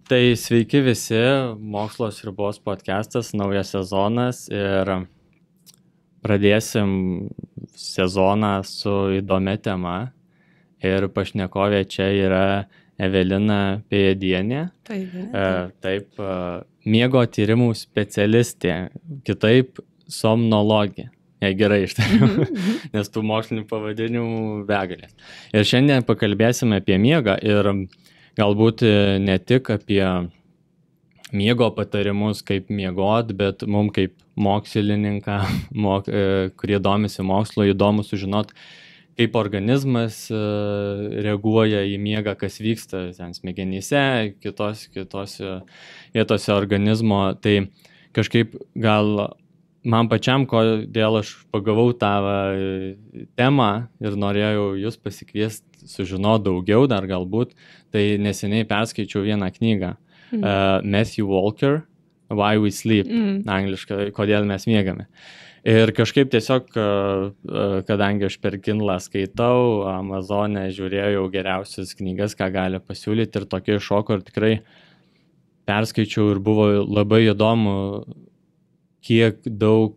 Tai sveiki visi, Mokslo sriubos podcastas, naujas sezonas ir pradėsim sezoną su įdomia tema ir pašnekovė čia yra Evelina Pėjėdienė. Taip, miego tyrimų specialistė, kitaip somnologė. Jei gerai ištariu, nes tų mokslinių pavadinimų begalės. Ir šiandien pakalbėsime apie miegą ir galbūt ne tik apie miego patarimus, kaip miegot, bet mums kaip mokslininką, kurie domisi mokslo, įdomu sužinot, kaip organizmas reaguoja į miegą, kas vyksta ten smegenyse, kitose vietose organizmo. Tai kažkaip gal man pačiam, kodėl aš pagavau tą temą ir norėjau jūs pasikviesti sužinoti daugiau dar galbūt, tai neseniai perskaičiau vieną knygą. Matthew Walker, Why We Sleep, angliškai, kodėl mes miegame. Ir kažkaip tiesiog, kadangi aš per Kindle skaitau, Amazone žiūrėjau geriausias knygas, ką gali pasiūlyti ir tokie šoko ir tikrai perskaičiau ir buvo labai įdomu, kiek daug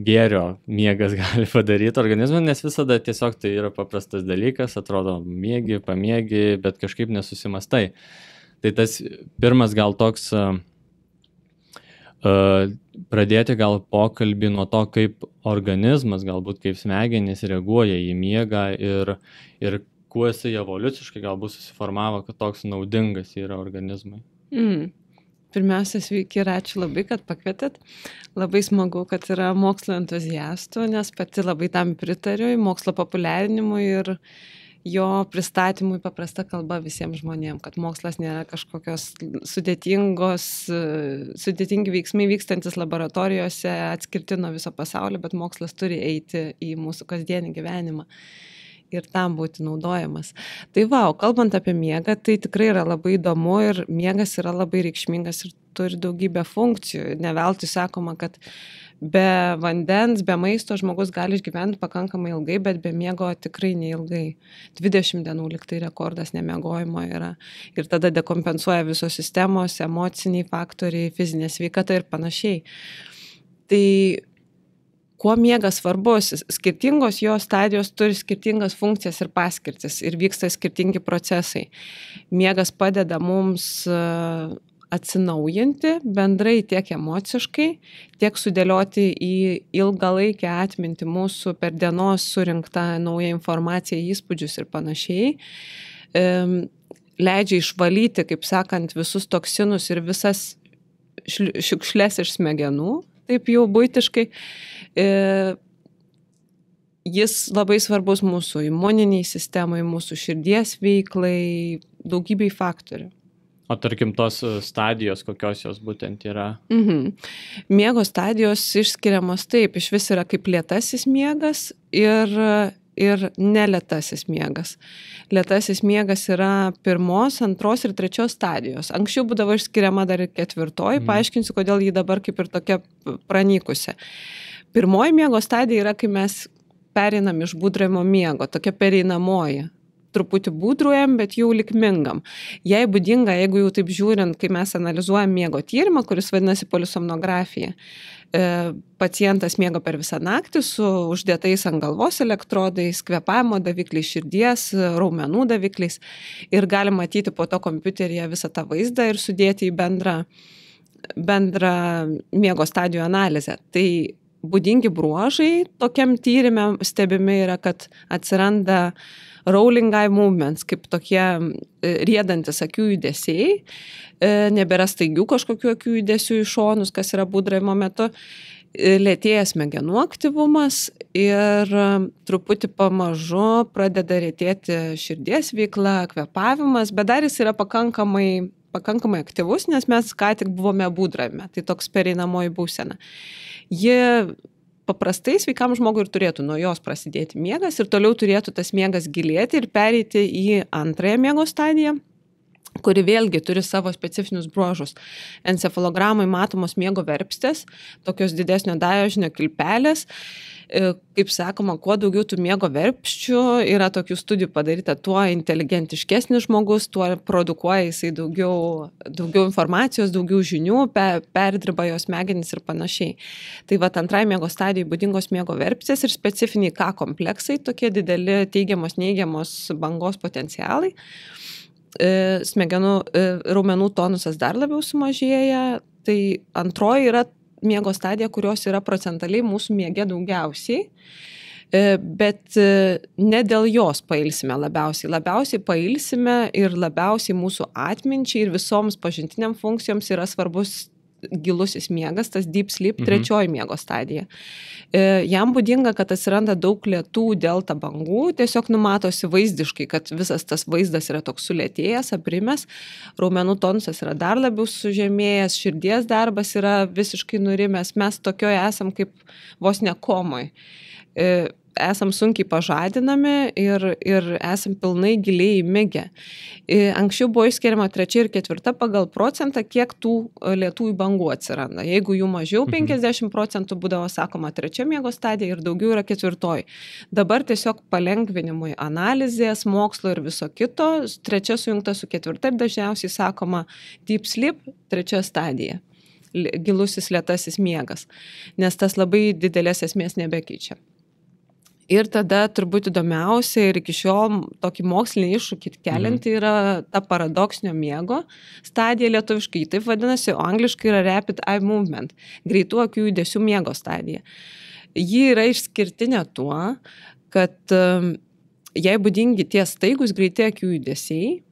gėrio miegas gali padaryti organizmui, nes visada tiesiog tai yra paprastas dalykas, atrodo miegi, pamiegi, bet kažkaip nesusimastai. Tai tas pirmas gal toks pradėti gal pokalbį nuo to, kaip organizmas, galbūt kaip smegenys reaguoja į miegą ir kuo jisai evoliuciškai galbūt susiformavo, kad toks naudingas yra organizmui. Pirmiausia, sveiki ir ačiū labai, kad pakvietėt. Labai smagu, kad yra mokslo entuziastų, nes pati labai tam pritariu, mokslo populiarinimui ir jo pristatymui paprasta kalba visiems žmonėms, kad mokslas nėra kažkokios sudėtingi veiksmai vykstantis laboratorijose atskirti nuo viso pasaulio, bet mokslas turi eiti į mūsų kasdienį gyvenimą ir tam būti naudojamas. Tai kalbant apie miegą, tai tikrai yra labai įdomu ir miegas yra labai reikšmingas ir turi daugybę funkcijų. Ne veltui sakoma, kad be vandens, be maisto žmogus gali išgyventi pakankamai ilgai, bet be miego tikrai neilgai. 20 dienų lyg tai rekordas nemiegojimo yra. Ir tada dekompensuoja visos sistemos, emociniai faktoriai, fizinė sveikata ir panašiai. Tai kuo miegas svarbus? Skirtingos jo stadijos turi skirtingas funkcijas ir paskirtis ir vyksta skirtingi procesai. Miegas padeda mums atsinaujinti bendrai tiek emociškai, tiek sudėlioti į ilgalaikę atmintį mūsų per dienos surinktą naują informaciją, įspūdžius ir panašiai. Leidžia išvalyti, kaip sakant, visus toksinus ir visas šiukšles iš smegenų, taip jau buitiškai. Jis labai svarbus mūsų imuniniai sistemai, mūsų širdies veiklai, daugybei faktorių. O tarkim, tos stadijos, kokios jos būtent yra? Miego stadijos išskiriamos taip, iš vis yra kaip lėtasis miegas ir nelėtasis miegas. Lėtasis miegas yra 1, 2 ir 3 stadijos. Anksčiau būdavo išskiriama dar ir 4, paaiškinsiu, kodėl jį dabar kaip ir tokia pranykusi. 1 miego stadija yra, kai mes pereinam iš būdravimo miego, tokia pereinamoji. Truputį būdruojam, bet jau likmingam. Jei būdinga, jeigu jau taip žiūrint, kai mes analizuojam miego tyrimą, kuris vadinasi polisomnografija, pacientas miega per visą naktį su uždėtais ant galvos elektrodais, kvėpavimo davikliais, širdies, raumenų davikliais ir gali matyti po to kompiuteryje visą tą vaizdą ir sudėti į bendrą miego stadijų analizę. Tai būdingi bruožai tokiam tyrime stebimi yra, kad atsiranda rolling eye movements, kaip tokie riedantis akių judesiai, nebėra staigių kažkokių akių judesių į šonus, kas yra būdravimo metu, lėtėja smegenų aktyvumas ir truputį pamažu pradeda retėti širdies veikla, kvėpavimas, bet dar jis yra pakankamai aktyvus, nes mes ką tik buvome būdravime, tai toks pereinamoji būsena. Ji paprastai sveikam žmogui ir turėtų nuo jos prasidėti miegas ir toliau turėtų tas miegas gilėti ir pereiti į antrąją miego stadiją. kuri vėlgi turi savo specifinius bruožus. Encefalogramai matomos miego verpstės, tokios didesnio dažnio kilpelės. Kaip sakoma, kuo daugiau tų miego verpščių, yra tokių studijų padaryta, tuo inteligentiškesnis žmogus, tuo produkuoja jisai daugiau informacijos, daugiau žinių, perdirba jos smegenys ir panašiai. Tai va, antrai miego stadijai būdingos miego verpstės ir specifiniai K kompleksai, tokie dideli teigiamos, neigiamos bangos potencialai. Smegenų raumenų tonusas dar labiau sumažėja. Tai antroji yra miego stadija, kurios yra procentaliai mūsų miege daugiausiai, bet ne dėl jos pailsime labiausiai. Labiausiai pailsime ir labiausiai mūsų atminčiai ir visoms pažintiniam funkcijoms yra svarbus gilusis miegas, tas deep sleep, trečioji miego stadija. Jam būdinga, kad atsiranda daug lėtų delta bangų, tiesiog numatosi vaizdiškai, kad visas tas vaizdas yra toks sulėtėjęs, aprimęs, raumenų tonusas yra dar labiau sužemėjęs, širdies darbas yra visiškai nurimęs, mes tokioje esam kaip vos ne komoj. Esam sunkiai pažadinami ir esam pilnai giliai įmigę. Anksčiau buvo išskiriama 3 ir 4 pagal procentą, kiek tų lėtųjų bangų atsiranda. Jeigu jų mažiau 50% būdavo sakoma 3 miego stadija ir daugiau yra 4. Dabar tiesiog palengvinimui analizės, mokslo ir viso kito, 3 sujungta su 4 ir dažniausiai sakoma deep sleep, 3 stadija. Gilusis lėtasis miegas, nes tas labai didelės esmės nebekeičia. Ir tada turbūt įdomiausia ir iki šiol tokį mokslinį iššūkį kelianti yra ta paradoksinio miego stadija, lietuviškai taip vadinasi, o angliškai yra rapid eye movement, greitų akių judesių miego stadija. Ji yra išskirtinė tuo, kad jai būdingi tie staigus greiti akių judesiai,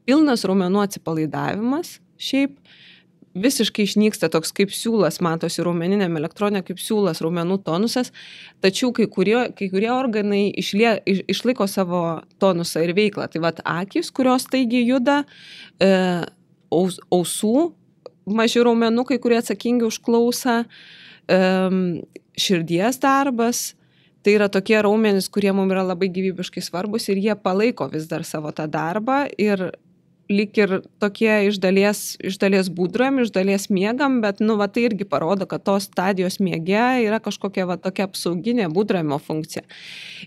pilnas raumenų atsipalaidavimas, šiaip visiškai išnyksta toks kaip siūlas, matosi raumeniniam elektronė kaip siūlas, raumenų tonusas, tačiau kai kurie organai išlaiko savo tonusą ir veiklą. Tai vat akys, kurios staigiai juda, ausų maži raumenukai, kurie atsakingi už klausą, širdies darbas. Tai yra tokie raumenys, kurie mums yra labai gyvybiškai svarbus ir jie palaiko vis dar savo tą darbą ir lyg ir tokie iš dalies būdraujam, iš dalies miegam, bet tai irgi parodo, kad tos stadijos miege yra kažkokia tokia apsauginė būdraujimo funkcija.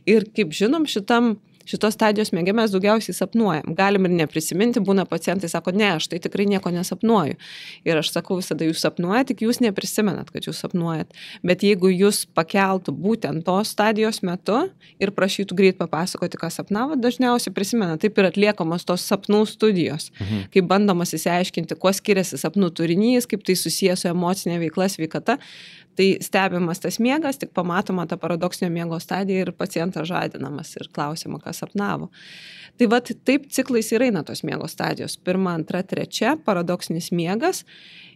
Ir kaip žinom, šitos stadijos miege mes daugiausiai sapnuojam. Galim ir neprisiminti, būna pacientai sako, ne, aš tai tikrai nieko nesapnuoju. Ir aš sakau visada, jūs sapnuojat, tik jūs neprisimenat, kad jūs sapnuojat. Bet jeigu jūs pakeltų būtent tos stadijos metu ir prašytų greit papasakoti, ką sapnavot, dažniausiai prisimena. Taip ir atliekamos tos sapnų studijos, kaip bandomas įsiaiškinti, kuo skiriasi sapnų turinys, kaip tai susijęs su emocinė veikla, sveikata. Tai stebimas tas miegas, tik pamatoma ta paradoksinio miego stadija ir pacientas žadinamas ir klausima, ką sapnavo. Tai vat taip ciklais ir eina tos miego stadijos. 1, 2, 3 paradoksinis miegas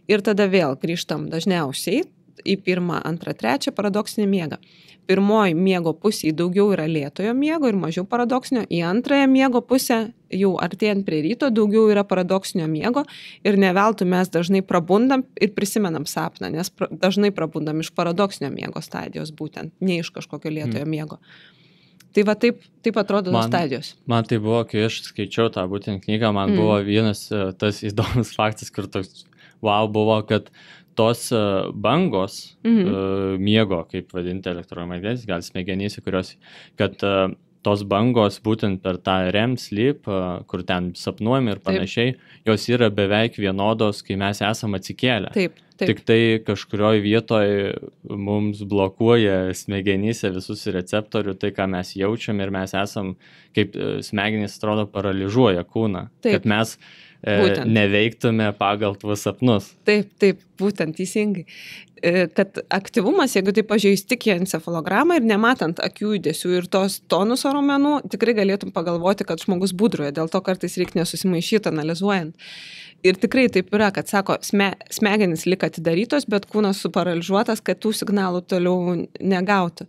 ir tada vėl grįžtam dažniausiai į 1, 2, 3 paradoksinį miegą. Pirmoji miego pusė daugiau yra lėtojo miego ir mažiau paradoksinio, į antrąją miego pusę jau artėjant prie ryto daugiau yra paradoksinio miego ir ne veltui mes dažnai prabundam ir prisimenam sapną, nes dažnai prabundam iš paradoksinio miego stadijos būtent, ne iš kažkokio lėtojo miego. Tai va taip atrodo tos stadijos. Man tai buvo, kai aš skaičiau tą būtent knygą, man buvo vienas tas įdomus faktas, kur toks buvo, kad tos bangos miego, kaip vadinti elektromagnetinės, gal smegenyse, kurios, kad tos bangos būtent per tą REM sleep, kur ten sapnuojam ir panašiai, jos yra beveik vienodos, kai mes esam atsikėlę. Taip. Tik tai kažkurioje vietoje mums blokuoja smegenyse visus receptorių, tai ką mes jaučiam ir mes esam, kaip smegenys atrodo, paralyžuoja kūną, kad mes neveiktume pagal tuos sapnus. Taip, būtent teisingai. Kad aktyvumas, jeigu tai pažiūrėjus tik į encefalogramą ir nematant akių judesių ir tos tonuso raumenų, tikrai galėtum pagalvoti, kad žmogus būdruoja, dėl to kartais reikia nesusimaišyti analizuojant. Ir tikrai taip yra, kad sako, smegenys lik atidarytos, bet kūnas suparaližuotas, kad tų signalų toliau negautų.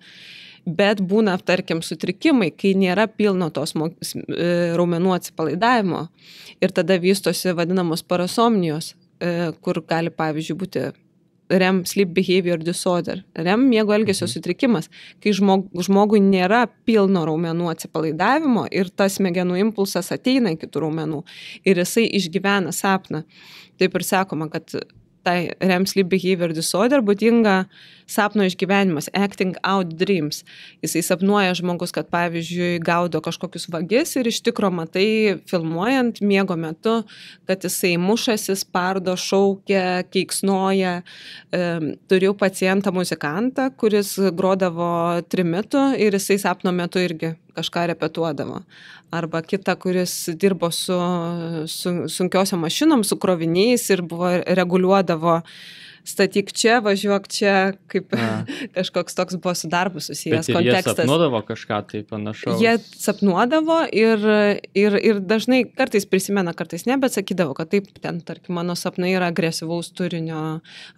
Bet būna, tarkim, sutrikimai, kai nėra pilno tos raumenų atsipalaidavimo ir tada vystosi vadinamos parasomnijos, kur gali, pavyzdžiui, būti REM sleep behavior disorder. REM miego elgesio sutrikimas, kai žmogui nėra pilno raumenų atsipalaidavimo ir tas smegenų impulsas ateina iki tų raumenų ir jisai išgyvena sapną. Taip ir sakoma, kad tai REM sleep behavior disorder būdinga sapno išgyvenimas, acting out dreams. Jisai sapnuoja žmogus, kad pavyzdžiui gaudo kažkokius vagis ir iš tikro matai filmuojant miego metu, kad jisai mušasi, spardo, šaukia, keiksnoja. Turiu pacientą muzikantą, kuris grodavo trimitu ir jisai sapno metu irgi kažką repetuodavo. Arba kita, kuris dirbo su sunkiosiom mašinom, su kroviniais ir reguliuodavo statyk čia, važiuok čia, kaip kažkoks toks buvo su darbu susijęs kontekstas. Bet jie sapnuodavo kažką tai panašaus? Jie sapnuodavo ir dažnai kartais prisimena, kartais ne, bet sakydavo, kad taip, ten, tarkim, mano sapnai yra agresyvaus turinio,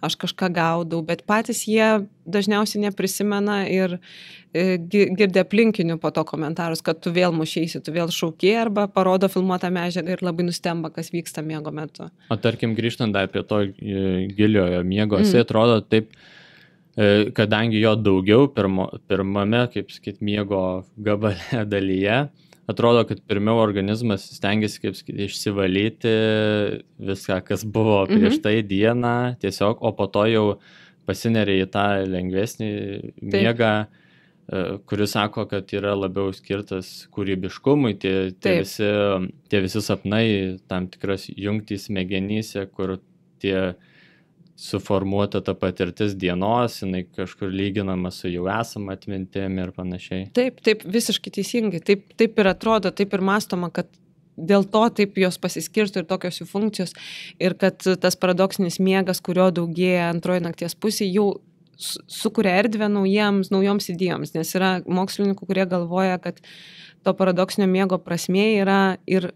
aš kažką gaudau, bet patys jie dažniausiai neprisimena ir girdė aplinkinių po to komentarus, kad tu vėl mušeisi, tu vėl šaukiai arba parodo filmuotą medžiagą ir labai nustemba, kas vyksta miego metu. O tarkim, grįžtant dar prie to giliojo miego, jisai atrodo taip, kadangi jo daugiau pirmame, kaip sakyt, miego gabale dalyje, atrodo, kad pirmiau organizmas stengiasi, kaip sakyt, išsivalyti viską, kas buvo prieš tai dieną, tiesiog, o po to jau pasineria į tą lengvesnį miegą, kuris sako, kad yra labiau skirtas kūrybiškumui, tie visi sapnai, tam tikras jungtys smegenyse, kur tie suformuota ta patirtis dienos, jinai kažkur lyginama su jau esama atmintim ir panašiai. Taip, visiškai teisingai. Taip ir atrodo, taip ir mąstoma, kad dėl to taip jos pasiskirsto ir tokios jų funkcijos ir kad tas paradoksinis miegas, kurio daugėja antroji nakties pusė, jau sukuria erdvę naujoms idėjoms, nes yra mokslininkų, kurie galvoja, kad to paradoksinio miego prasmė yra ir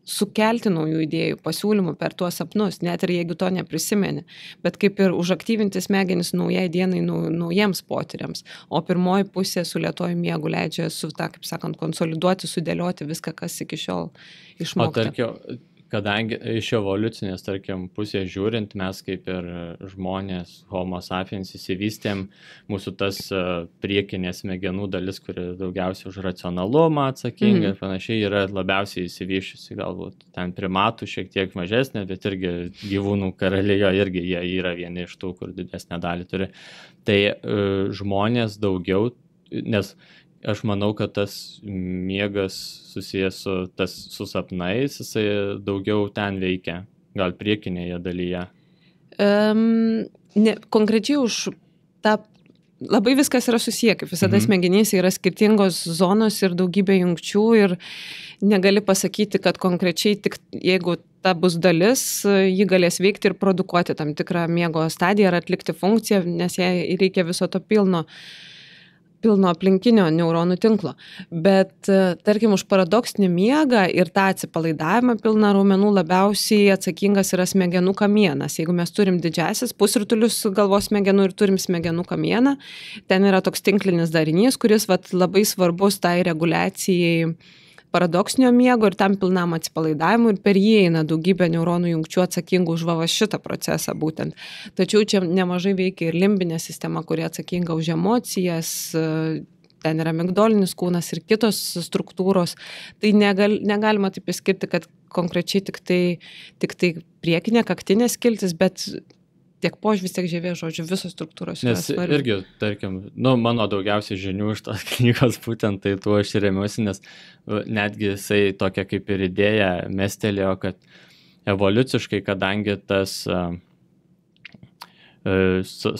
sukelti naujų idėjų, pasiūlymų per tuos sapnus, net ir jeigu to neprisimeni, bet kaip ir užaktyvinti smegenis naujai dienai, naujiems potyriams, o pirmoji pusė su lėtuoju miegu leidžia kaip sakant, konsoliduoti, sudėlioti viską, kas iki šiol išmokta. O tarkim, kadangi iš evoliucinės, tarkim, pusės žiūrint, mes kaip ir žmonės, homo sapiens įsivystėm, mūsų tas priekinės smegenų dalis, kuri daugiausiai už racionalumą atsakinga ir panašiai, yra labiausiai įsivyščiusi, galbūt ten primatų šiek tiek mažesnė, bet irgi gyvūnų karalijo irgi jie yra vieni iš tų, kur didesnę dalį turi. Tai žmonės daugiau, nes aš manau, kad tas miegas susijęs su sapnais, jisai daugiau ten veikia, gal priekinėje dalyje. Konkrečiai už tą, labai viskas yra susiję, kaip visada smegenyse yra skirtingos zonos ir daugybė jungčių ir negali pasakyti, kad konkrečiai tik jeigu ta bus dalis, ji galės veikti ir produkuoti tam tikrą miego stadiją ar atlikti funkciją, nes jai reikia viso to pilno aplinkinio neuronų tinklo. Bet, tarkim, už paradoksinį miegą ir tą atsipalaidavimą pilną raumenų labiausiai atsakingas yra smegenų kamienas. Jeigu mes turim didžiasis pusrutulius galvos smegenų ir turim smegenų kamieną, ten yra toks tinklinis darinys, kuris labai svarbus tai reguliacijai paradoksinio miego ir tam pilnam atsipalaidavimui ir per jį eina daugybė neuronų jungčių atsakingų už šitą procesą būtent. Tačiau čia nemažai veikia ir limbinė sistema, kuri atsakinga už emocijas, ten yra amigdolinis kūnas ir kitos struktūros. Tai negalima taip išskirti, kad konkrečiai tik tai priekinė kaktinė skiltis, bet tiek požvis, tiek žievės, žodžiu, visos struktūros yra svarbios. Nes irgi, tarkim, mano daugiausiai žinių iš tos knygos būtent tai tuo aš remiuosi, nes netgi jisai tokia kaip ir idėja mestelėjo, kad evoliuciškai, kadangi tas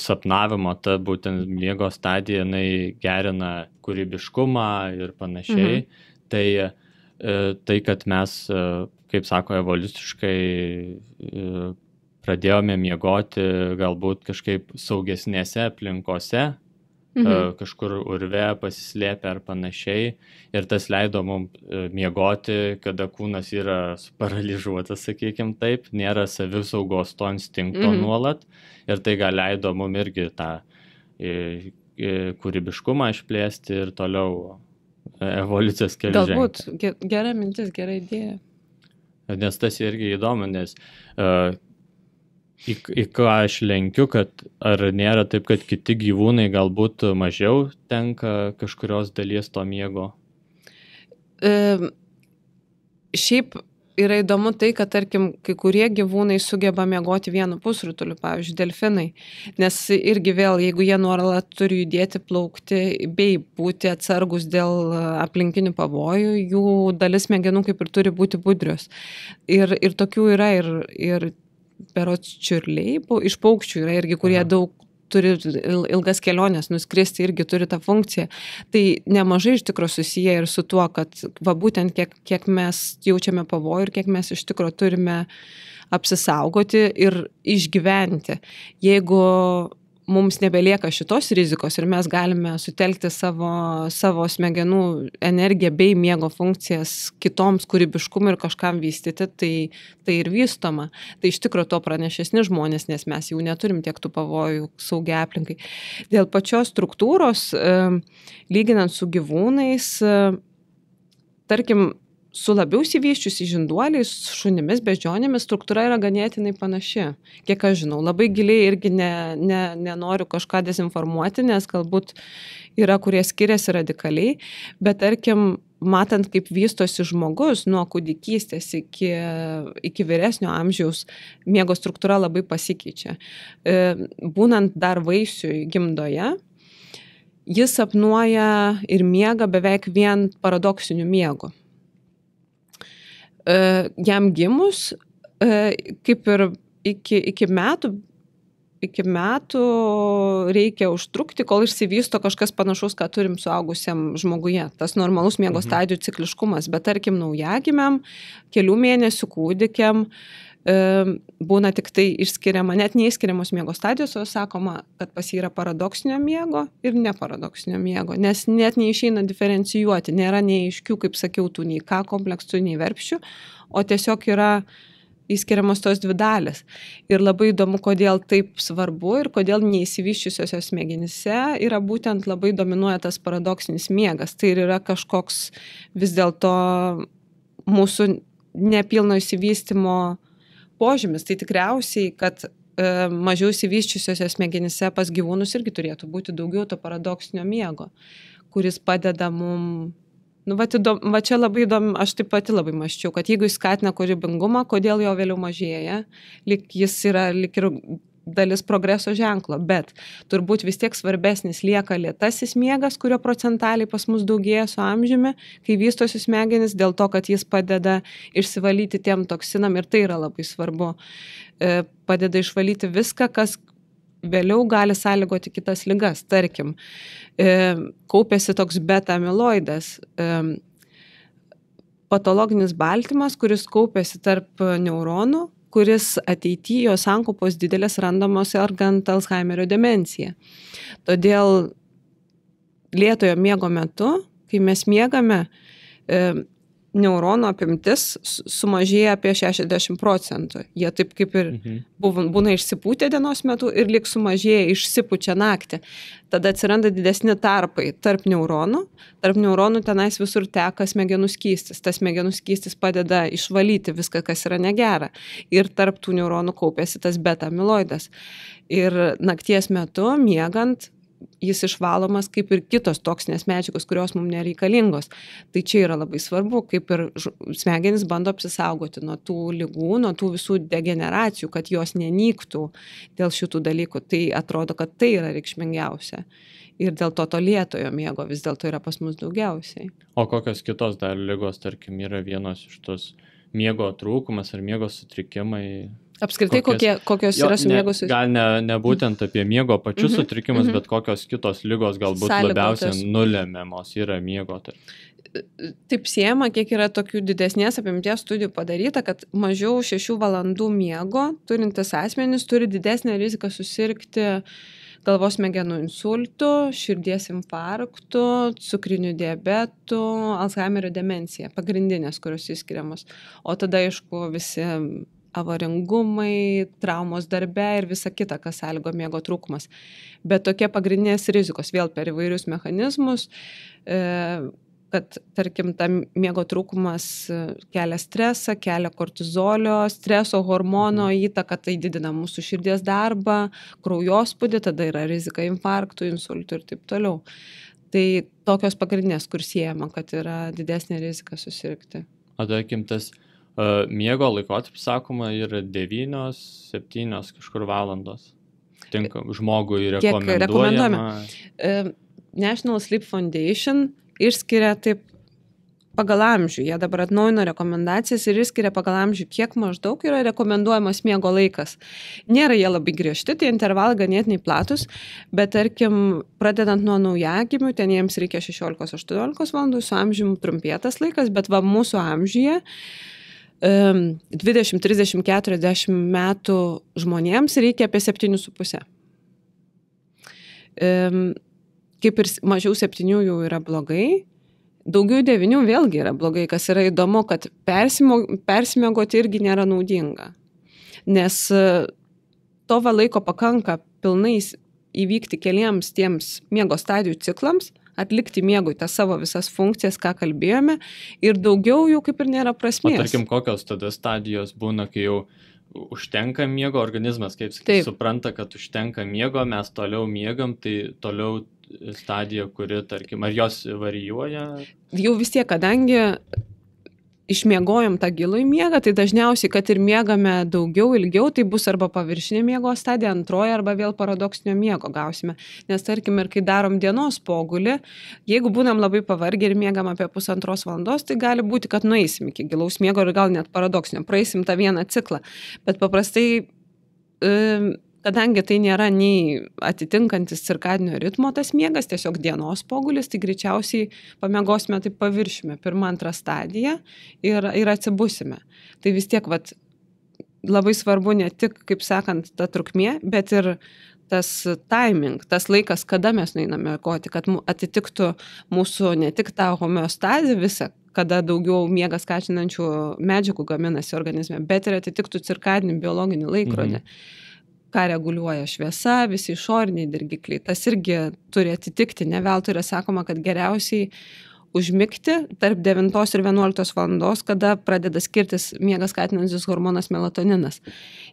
sapnavimo, ta būtent miego stadija, jinai gerina kūrybiškumą ir panašiai, tai, kad mes, kaip sako, evoliuciškai pradėjome miegoti galbūt kažkaip saugesnėse aplinkose, kažkur urve pasislėpę ar panašiai. Ir tas leido mums miegoti, kada kūnas yra paralyžiuotas, sakykim taip, nėra savisaugos to instinkto nuolat. Ir tai gal leido mums irgi tą kūrybiškumą išplėsti ir toliau evoliucijos keliu žengti. Galbūt gera mintis, gera idėja. Nes tas irgi įdomu, nes į ką aš lenkiu, kad ar nėra taip, kad kiti gyvūnai galbūt mažiau tenka kažkurios dalies to miego? Šiaip yra įdomu tai, kad, tarkim, kai kurie gyvūnai sugeba miegoti vienu pusrutuliu, pavyzdžiui, delfinai, nes irgi vėl, jeigu jie nuolat turi judėti, plaukti bei būti atsargus dėl aplinkinių pavojų, jų dalis smegenų kaip ir turi būti budrios. Ir tokių yra ir berods čiurliai, iš paukščių yra irgi, kurie daug turi ilgas keliones, nuskristi irgi turi tą funkciją. Tai nemažai iš tikro susiję ir su tuo, kad va būtent kiek mes jaučiame pavojų ir kiek mes iš tikro turime apsisaugoti ir išgyventi. Jeigu mums nebelieka šitos rizikos ir mes galime sutelkti savo smegenų energiją bei miego funkcijas kitoms kūrybiškumui ir kažkam vystyti, tai ir vystoma. Tai iš tikro to pranešesni žmonės, nes mes jau neturim tiek tų pavojų saugiai aplinkai. Dėl pačios struktūros, lyginant su gyvūnais, tarkim, su labiau išsivysčiusi žinduoliais, šunimis, beždžionėmis struktūra yra ganėtinai panaši. Kiek aš žinau, labai giliai irgi nenoriu kažką dezinformuoti, nes galbūt yra, kurie skiriasi radikaliai, bet tarkim, matant, kaip vystosi žmogus nuo kūdikystės iki vyresnio amžiaus, miego struktūra labai pasikeičia. Būnant dar vaisiui gimdoje, jis sapnuoja ir miega beveik vien paradoksiniu miegu. Jam gimus, kaip ir iki metų reikia užtrukti, kol išsivysto kažkas panašaus, ką turim suaugusiam žmoguje. Tas normalus miego stadijų cikliškumas, bet tarkim naujagimiam, kelių mėnesių kūdikiam būna tik tai išskiriama, net neįskiriamos miego stadijos, o sakoma, kad pas jį yra paradoksinio miego ir neparadoksinio miego, nes net neišeina diferencijuoti, nėra neaiškių, kaip sakiau, tų nei K kompleksų, nei verpščių, o tiesiog yra įskiriamos tos dvi dalys. Ir labai įdomu, kodėl taip svarbu ir kodėl neįsivyščiusiose smegenyse yra būtent labai dominuoja tas paradoksinis miegas. Tai ir yra kažkoks vis dėlto mūsų nepilno įsivystymo požymis. Tai tikriausiai, kad mažiau įsivyščiusiose smegenyse pas gyvūnus irgi turėtų būti daugiau to paradoksinio miego, kuris padeda mum. Va čia labai įdomu, aš taip pati labai mąsčiau, kad jeigu jis skatina kūrybingumą, kodėl jo vėliau mažėja, jis yra lyg ir dalis progreso ženklo, bet turbūt vis tiek svarbesnis lieka lėtasis miegas, kurio procentaliai pas mus daugėja su amžiumi, kai vystosi smegenys, dėl to, kad jis padeda išsivalyti tiem toksinam ir tai yra labai svarbu. Padeda išvalyti viską, kas vėliau gali sąlygoti kitas ligas. Tarkim, kaupėsi toks beta-amiloidas, patologinis baltymas, kuris kaupėsi tarp neuronų, kuris ateityje jo sankaupos didelės randamos sergant Alzheimerio demenciją. Todėl lėtojo miego metu, kai mes miegame, neuronų apimtis sumažėja apie 60%. Jie taip kaip ir būna išsipūtę dienos metu ir lyg sumažėja, išsipučia naktį. Tada atsiranda didesni tarpai tarp neuronų. Tarp neuronų tenais visur teka smegenų skystis. Tas smegenų skystis padeda išvalyti viską, kas yra negera. Ir tarp tų neuronų kaupėsi tas beta-amiloidas. Ir nakties metu, miegant, jis išvalomas kaip ir kitos toksinės medžiagos, kurios mums nereikalingos. Tai čia yra labai svarbu, kaip ir smegenys bando apsisaugoti nuo tų ligų, nuo tų visų degeneracijų, kad jos nenyktų dėl šitų dalykų. Tai atrodo, kad tai yra reikšmingiausia. Ir dėl to lėtojo miego vis dėlto yra pas mus daugiausiai. O kokios kitos dar ligos, tarkim, yra vienos iš tos miego trūkumas ar miego sutrikimai? Apskritai, kokios yra su miego sutrikimai? Gal ne būtent apie miego pačius sutrikimus, bet kokios kitos ligos galbūt labiausiai nulemiamos yra miego. Taip siejama, kiek yra tokių didesnės apimties studijų padaryta, kad mažiau 6 valandų miego turintis asmenys turi didesnę riziką susirgti galvos smegenų insultų, širdies infarktų, cukriniu diabetu, Alzheimerio demencija, pagrindinės, kurios įskiriamos. O tada, aišku, visi avaringumai, traumos darbe ir visa kita, kas sąlygo miego trūkumas. Bet tokie pagrindinės rizikos vėl per įvairius mechanizmus kad tarkim, ta miego trūkumas kelia stresą, kelia kortizolio, streso hormono įtaką, tai didina mūsų širdies darbą, kraujospūdį, tada yra rizika infarktų, insultų ir taip toliau. Tai tokios pagrindinės, kur siejama, kad yra didesnė rizika susirgti. O tarkim, tas miego laikotarpis, sakoma, yra 9-7 kažkur valandos. Tinka žmogui rekomenduojama. National Sleep Foundation išskiria taip pagal amžių. Jie dabar atnaujino rekomendacijas ir išskiria pagal amžių, kiek maždaug yra rekomenduojamas miego laikas. Nėra jie labai griežti, tai intervalai ganėtinai platus, bet tarkim, pradedant nuo naujagimių, ten jiems reikia 16-18 valandų, su amžiumi trumpėtas laikas, bet va mūsų amžiuje 20, 30, 40 metų žmonėms reikia apie 7,5. Kaip ir mažiau 7 jau yra blogai, daugiau 9 vėlgi yra blogai, kas yra įdomu, kad persimiegoti irgi nėra naudinga, nes to laiko pakanka pilnai įvykti keliems tiems miego stadijų ciklams, atlikti miegui tas savo visas funkcijas, ką kalbėjome, ir daugiau jau kaip ir nėra prasmės. O tarkim, kokios tada stadijos būna, kai jau užtenka miego, organizmas, kaip supranta, kad užtenka miego, mes toliau miegam, tai toliau stadija, kuri, tarkim, ar jos varijuoja? Jau vis tiek, kadangi išmiegojom tą gilų miegą, tai dažniausiai, kad ir miegame daugiau, ilgiau, tai bus arba paviršinė miego stadija, antroji, arba vėl paradoksinio miego gausime. Nes tarkim, ir kai darom dienos pogulį, jeigu būnam labai pavargę ir miegam apie 1,5 valandos, tai gali būti, kad nueisim iki gilaus miego ir gal net paradoksinio, praeisim tą vieną ciklą. Bet paprastai kadangi tai nėra nei atitinkantis cirkadinio ritmo tas miegas, tiesiog dienos pogulis, tai greičiausiai pamiegosime taip paviršime, 1-2 stadiją ir atsibusime. Tai vis tiek labai svarbu ne tik, kaip sakant, ta trukmė, bet ir tas timing, tas laikas, kada mes nueiname miegoti, kad atitiktų mūsų ne tik tą homeostazę visą, kada daugiau miegą skatinančių medžiagų gaminasi organizme, bet ir atitiktų cirkadinį biologinį laikrodį. Ką reguliuoja šviesa, visi išoriniai dirgikliai. Tas irgi turi atitikti. Ne veltui yra sakoma, kad geriausiai užmigti tarp 9 ir 11 valandos, kada pradeda skirtis miegą skatinantis hormonas melatoninas.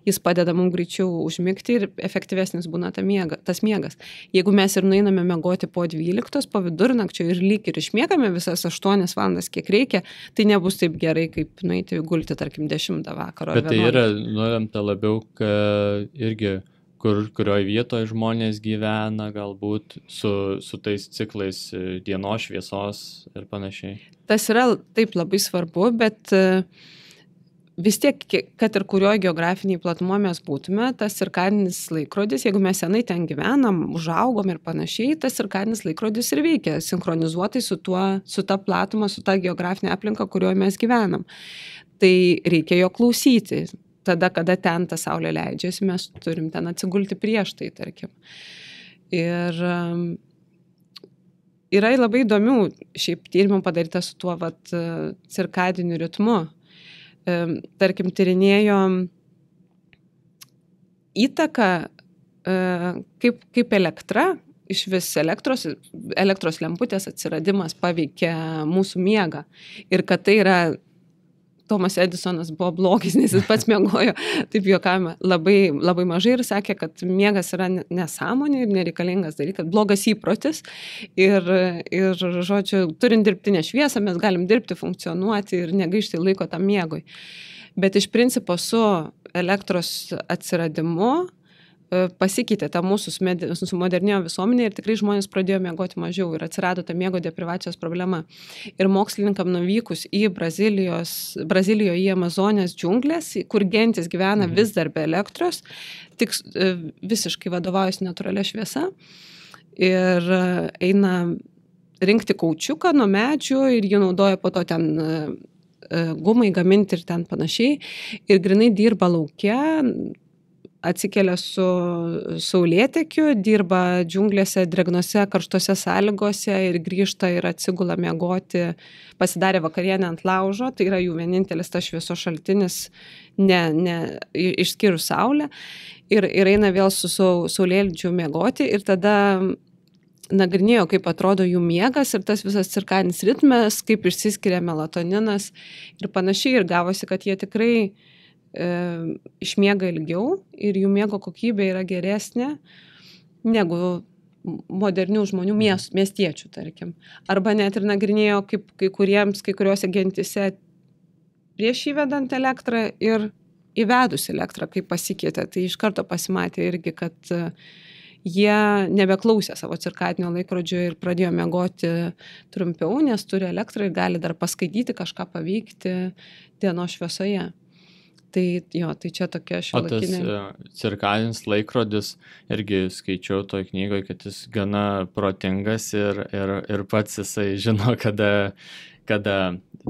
Jis padeda mums greičiau užmigti ir efektyvesnis būna tas miegas. Jeigu mes ir nueiname miegoti po 12, po vidurnakčio ir lyg ir išmiegame visas 8 valandas, kiek reikia, tai nebus taip gerai, kaip nueiti gulti, tarkim, 10 vakaro. Bet tai yra nulemta labiau, kad irgi kurioje vietoje žmonės gyvena, galbūt su tais ciklais dienos šviesos ir panašiai. Tas yra taip labai svarbu, bet vis tiek, kad ir kurioje geografiniai platumo mes būtume, tas cirkadinis laikrodis, jeigu mes senai ten gyvenam, užaugom ir panašiai, tas cirkadinis laikrodis ir veikia sinchronizuotai su ta platuma, su ta geografinė aplinka, kurioje mes gyvenam. Tai reikia jo klausyti. Tada, kada ten ta saulė leidžiasi, mes turim ten atsigulti prieš tai, tarkim. Ir yra labai įdomių šiaip tyrimų padaryta su tuo cirkadiniu ritmu. Tarkim, tyrinėjo įtaką, kaip elektra, iš vis elektros lemputės atsiradimas paveikia mūsų miegą. Ir kad tai yra Tomas Edisonas buvo blogis, nes jis pats miegojo, taip juokavome, labai, labai mažai ir sakė, kad miegas yra nesąmonė ir nereikalingas dalykas, blogas įprotis ir žodžiu, turint dirbtinę šviesą, mes galim dirbti, funkcionuoti ir negaišti laiko tam miegui. Bet iš principo su elektros atsiradimu pasikeitė ta mūsų modernėjo visuomenė ir tikrai žmonės pradėjo miegoti mažiau ir atsirado ta miego deprivacijos problema. Ir mokslininkam nuvykus į Brazilijoje į Amazonės džiunglės, kur gentis gyvena vis dar be elektros, tik visiškai vadovaujasi natūralia šviesa ir eina rinkti kaučiuką nuo medžių ir jį naudoja po to ten gumai gaminti ir ten panašiai. Ir grinai dirba lauke, atsikelia su saulėtekiu, dirba džiunglėse, dregnose, karštose sąlygose ir grįžta ir atsigula miegoti, pasidarė vakarienę ant laužo, tai yra jų vienintelis tas šviesos šaltinis, išskyrus saulę, ir eina vėl su saulėlydžiu miegoti ir tada nagrinėjo, kaip atrodo jų miegas ir tas visas cirkadinis ritmas, kaip išsiskiria melatoninas ir panašiai. Ir gavosi, kad jie tikrai išmiega ilgiau ir jų miego kokybė yra geresnė negu modernių žmonių miestiečių, tarkim. Arba net ir nagrinėjo, kaip kai kuriuose gentise prieš įvedant elektrą ir įvedus elektrą, kaip pasikeitė. Tai iš karto pasimatė irgi, kad jie nebeklausė savo cirkadinio laikrodžio ir pradėjo miegoti trumpiau, nes turi elektrą ir gali dar paskaityti, kažką paveikti dienos šviesoje. Tai čia tokia šiuolaikinė. O tas cirkadinis laikrodis, irgi skaičiau toj knygoje, kad jis gana protingas ir pats jisai žino, kada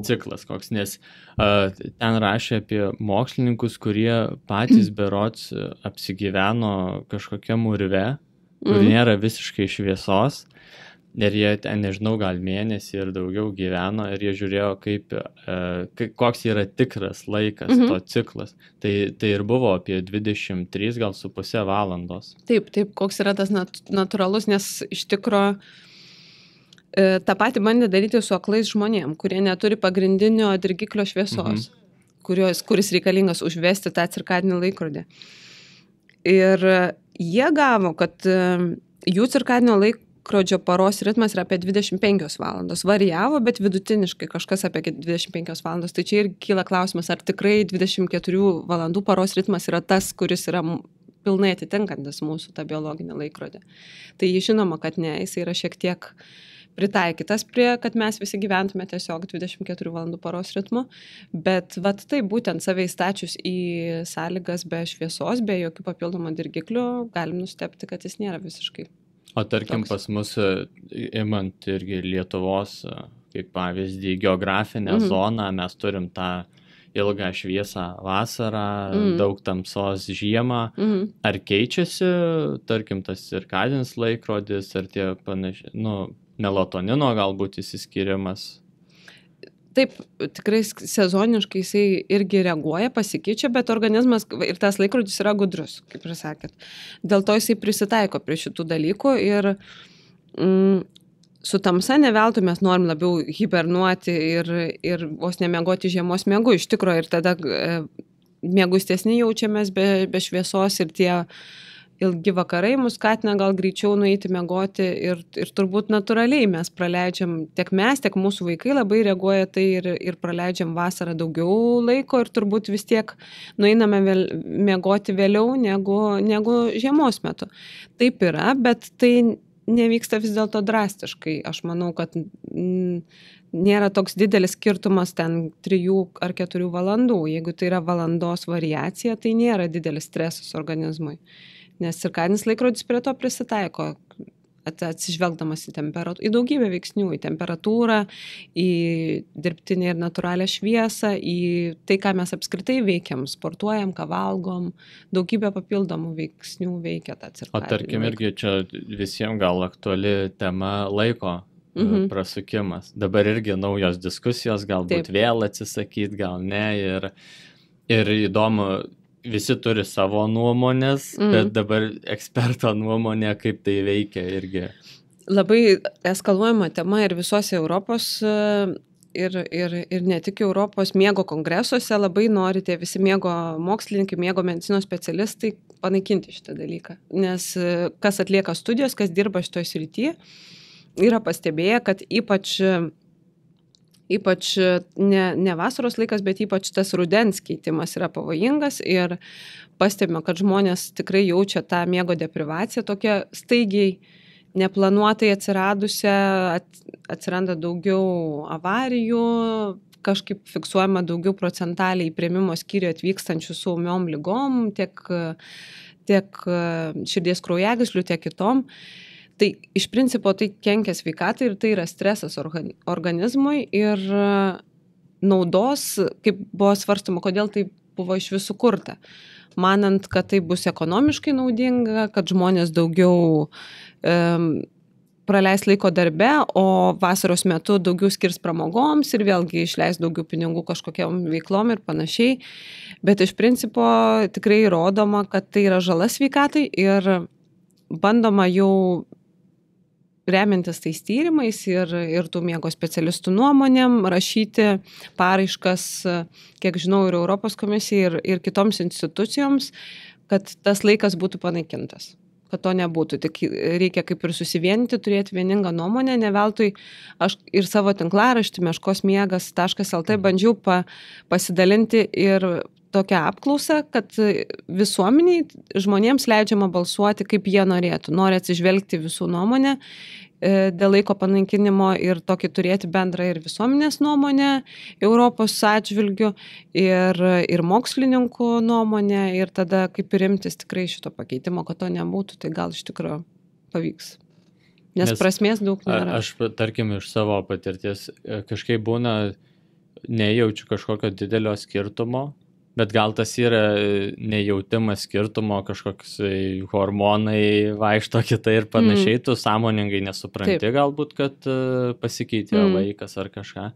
ciklas koks, nes ten rašė apie mokslininkus, kurie patys berods apsigyveno kažkokiam urve, kur nėra visiškai šviesos. Ir jie ten, nežinau, gal mėnesį ir daugiau gyveno ir jie žiūrėjo, koks yra tikras laikas, to ciklas. Tai ir buvo apie 23,5 valandos. Taip, koks yra tas natūralus, nes iš tikro tą patį bandė daryti su aklais žmonėm, kurie neturi pagrindinio dirgiklio šviesos, kuris reikalingas užvesti tą cirkadinį laikrodį. Ir jie gavo, kad jų cirkadinio laikrodžio paros ritmas yra apie 25 valandos. Varijavo, bet vidutiniškai kažkas apie 25 valandos. Tai čia ir kyla klausimas, ar tikrai 24 valandų paros ritmas yra tas, kuris yra pilnai atitinkantis mūsų tą biologinį laikrodį. Tai žinoma, kad ne, jis yra šiek tiek pritaikytas kad mes visi gyventume tiesiog 24 valandų paros ritmu, bet tai būtent save įstačius į sąlygas be šviesos, be jokių papildomų dirgiklių, galim nustebti, kad jis nėra visiškai. O tarkim pas mus, imant irgi Lietuvos, kaip pavyzdį, geografinę zoną, mes turim tą ilgą šviesą vasarą, daug tamsos žiemą. Ar keičiasi, tarkim, tas cirkadinis laikrodis, ar tie panašiai, melatonino galbūt įsiskirimas? Taip, tikrai sezoniškai jisai irgi reaguoja, pasikeičia, bet organizmas ir tas laikrodis yra gudrus, kaip ir sakėt. Dėl to jisai prisitaiko prie šitų dalykų ir su tamsa neveltui mes norim labiau hibernuoti ir vos nemiegoti žiemos miegu iš tikrųjų ir tada miegustesni jaučiamės be šviesos ir tie ilgi vakarai mus skatina gal greičiau nueiti miegoti ir turbūt natūraliai mes praleidžiam, tiek mes, tiek mūsų vaikai labai reaguoja tai ir praleidžiam vasarą daugiau laiko ir turbūt vis tiek nueiname miegoti vėliau negu žiemos metu. Taip yra, bet tai nevyksta vis dėlto drastiškai. Aš manau, kad nėra toks didelis skirtumas ten 3 ar 4 valandų. Jeigu tai yra valandos variacija, tai nėra didelis stresas organizmui. Nes cirkadinis laikrodis prie to prisitaiko, atsižvelgdamas į daugybę veiksnių, į temperatūrą, į dirbtinę ir natūralią šviesą, į tai, ką mes apskritai veikiam, sportuojam, ką valgom, daugybę papildomų veiksnių veikia tą cirkadinį. O tarkim irgi čia visiems gal aktuali tema laiko prasukimas. Dabar irgi naujos diskusijos, galbūt vėl atsisakyti, gal ne. Ir įdomu, visi turi savo nuomonės, bet dabar eksperto nuomonė, kaip tai veikia irgi. Labai eskaluojama tema ir visose Europos ir ne tik Europos miego kongresuose labai nori tie visi miego mokslininkai, miego medicinos specialistai panaikinti šitą dalyką. Nes kas atlieka studijos, kas dirba šitoj srityje, yra pastebėję, kad ypač ne vasaros laikas, bet ypač tas rudens keitimas yra pavojingas ir pastebime, kad žmonės tikrai jaučia tą miego deprivaciją, tokia staigiai neplanuotai atsiradusią, atsiranda daugiau avarijų, kažkaip fiksuojama daugiau procentaliai į priėmimo skyrių atvykstančių su ūmiom ligom, tiek širdies kraujagyslių, tiek kitom. Tai iš principo tai kenkia sveikatai ir tai yra stresas organizmui ir naudos, kaip buvo svarstama, kodėl tai buvo iš visų kurta. Manant, kad tai bus ekonomiškai naudinga, kad žmonės daugiau praleis laiko darbe, o vasaros metu daugiau skirs pramogoms ir vėlgi išleis daugiau pinigų kažkokiam veiklom ir panašiai. Bet iš principo tikrai įrodoma, kad tai yra žala sveikatai ir bandoma jau remiantis tais tyrimais ir tų miego specialistų nuomonėm rašyti paraiškas, kiek žinau, ir Europos komisijai, ir kitoms institucijoms, kad tas laikas būtų panaikintas. Kad to nebūtų, tik reikia kaip ir susivienyti, turėti vieningą nuomonę, ne veltui aš ir savo tinklaraštį meškosmiegas.lt bandžiau pasidalinti ir tokią apklausą, kad visuomeniai žmonėms leidžiama balsuoti, kaip jie norėtų, nori atsižvelgti visų nuomonę dėl laiko panaikinimo ir tokį turėti bendrą ir visuomenės nuomonę Europos atžvilgių ir mokslininkų nuomonę ir tada kaip ir imtis tikrai šito pakeitimo, kad to nebūtų, tai gal iš tikrųjų pavyks. Nes prasmės daug nėra. Aš, tarkim, iš savo patirties kažkaip būna, nejaučiu kažkokio didelio skirtumo, bet gal tas yra nejautimas skirtumo, kažkoks hormonai vaikšto kitai ir panašiai, tu sąmoningai nesupranti. Taip. Galbūt, kad pasikeitė laikas ar kažką,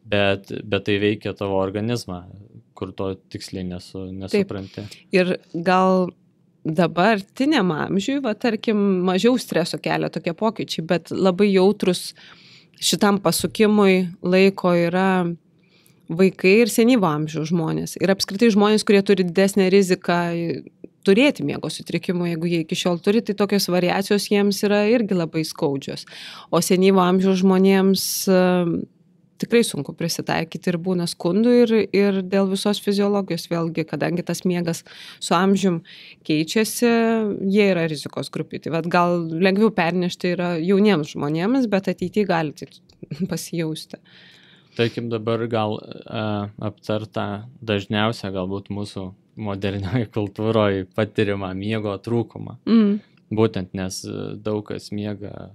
bet tai veikia tavo organizmą, kur to tiksliai nesupranti. Taip. Ir gal dabartiniam amžiui, tarkim, mažiau streso kelia tokie pokyčiai, bet labai jautrus šitam pasukimui laiko yra vaikai ir senyvo amžiaus žmonės. Ir apskritai žmonės, kurie turi didesnę riziką turėti miego sutrikimų, jeigu jie iki šiol turi, tai tokios variacijos jiems yra irgi labai skaudžios. O senyvo amžiaus žmonėms tikrai sunku prisitaikyti ir būna skundų ir dėl visos fiziologijos vėlgi, kadangi tas miegas su amžium keičiasi, jie yra rizikos grupė. Tai gal lengviau pernešti yra jauniems žmonėms, bet ateityje gali pasijausti. Tarkim, dabar gal aptarta dažniausia galbūt mūsų modernioje kultūroje patirimą miego trūkumą. Būtent, nes daug kas miega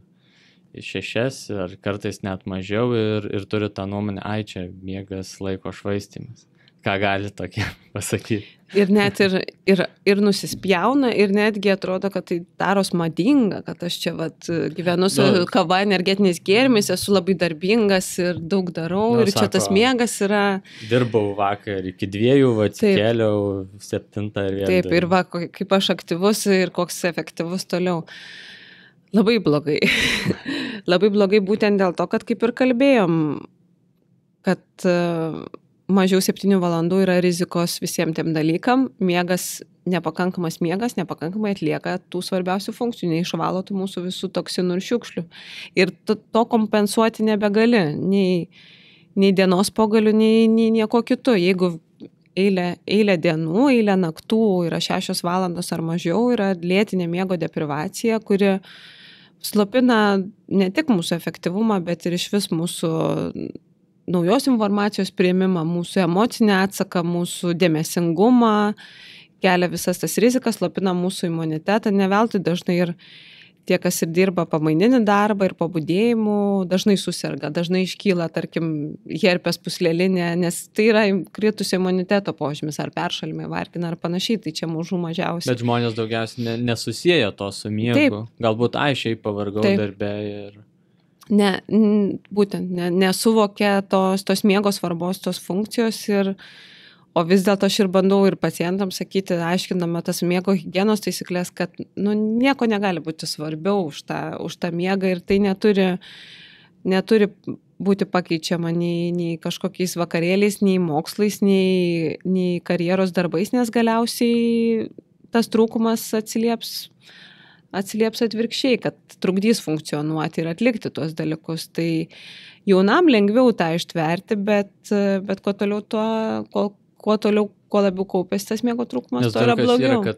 6 ar kartais net mažiau ir turi tą nuomonę, čia miegas laiko švaistymas. Ką gali tokie pasakyti? Ir net ir nusispjauna ir netgi atrodo, kad tai daros madinga, kad aš čia gyvenu su kava, energetiniais gėrimais, esu labai darbingas ir daug darau ir čia tas miegas yra... Dirbau vakar iki 2, atsikėliau 7 ir 1. Taip, ir kaip aš aktyvus ir koks efektyvus toliau. Labai blogai. Labai blogai būtent dėl to, kad kaip ir kalbėjom, kad... mažiau 7 valandų yra rizikos visiems tiem dalykam, nepakankamas miegas nepakankamai atlieka tų svarbiausių funkcijų, neišvalo tų mūsų visų toksinų ir šiukšlių. Ir to kompensuoti nebegali, nei dienos pogalių, nei nieko kitu. Jeigu eilę dienų, eilę naktų yra 6 valandos ar mažiau, yra lėtinė miego deprivacija, kuri slopina ne tik mūsų efektyvumą, bet ir iš vis mūsų naujos informacijos priėmimą, mūsų emocinį atsaką, mūsų dėmesingumą, kelia visas tas rizikas, slopina mūsų imunitetą, ne veltui dažnai ir tie, kas ir dirba pamaininį darbą ir pabudėjimų, dažnai suserga, dažnai iškyla, tarkim, herpes pūslelinė, nes tai yra kritusio imuniteto požymis, ar peršalimai, vargina, ar panašiai, tai čia mažų mažiausiai. Bet žmonės daugiausiai nesusieja to su miegu, taip. Galbūt šiaip pavargau darbe ir... Būtent nesuvokia tos miego svarbos, tos funkcijos o vis dėlto aš ir bandau ir pacientams sakyti, aiškinama tas miego higienos taisyklės, kad nieko negali būti svarbiau už tą miegą ir tai neturi būti pakeičiama nei kažkokiais vakarėliais, nei mokslais, nei karjeros darbais, nes galiausiai tas trūkumas atsilieps atvirkščiai, kad trukdys funkcionuoti ir atlikti tuos dalykus. Tai jaunam lengviau tą ištverti, bet kuo labiau kaupės tas miego trūkumas, to yra blogiau. Nes kad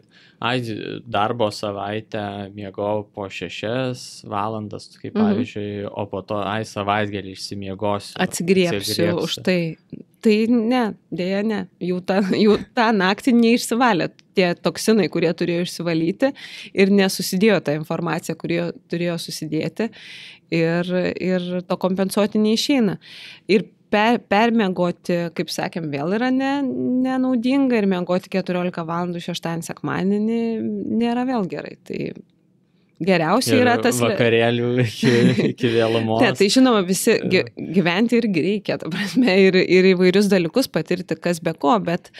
darbo savaitę miegau po 6 valandas, kaip pavyzdžiui, o po to savaitgalį išsimiegosiu. Atsigriepsiu už tai. Tai ne, dėja ne. Jau tą naktį neišsivalė tie toksinai, kurie turėjo išsivalyti ir nesusidėjo ta informacija, kurie turėjo susidėti ir to kompensuoti neišeina. Ir permiegoti, kaip sakėm, vėl yra nenaudinga ir miegoti 14 valandų šeštadienį sekmadienį nėra vėl gerai. Tai geriausiai yra tas... vakarėlių iki vėlumos. Ne, tai žinoma, visi gyventi irgi reikia, ta prasme, ir įvairius dalykus patirti, kas be ko, bet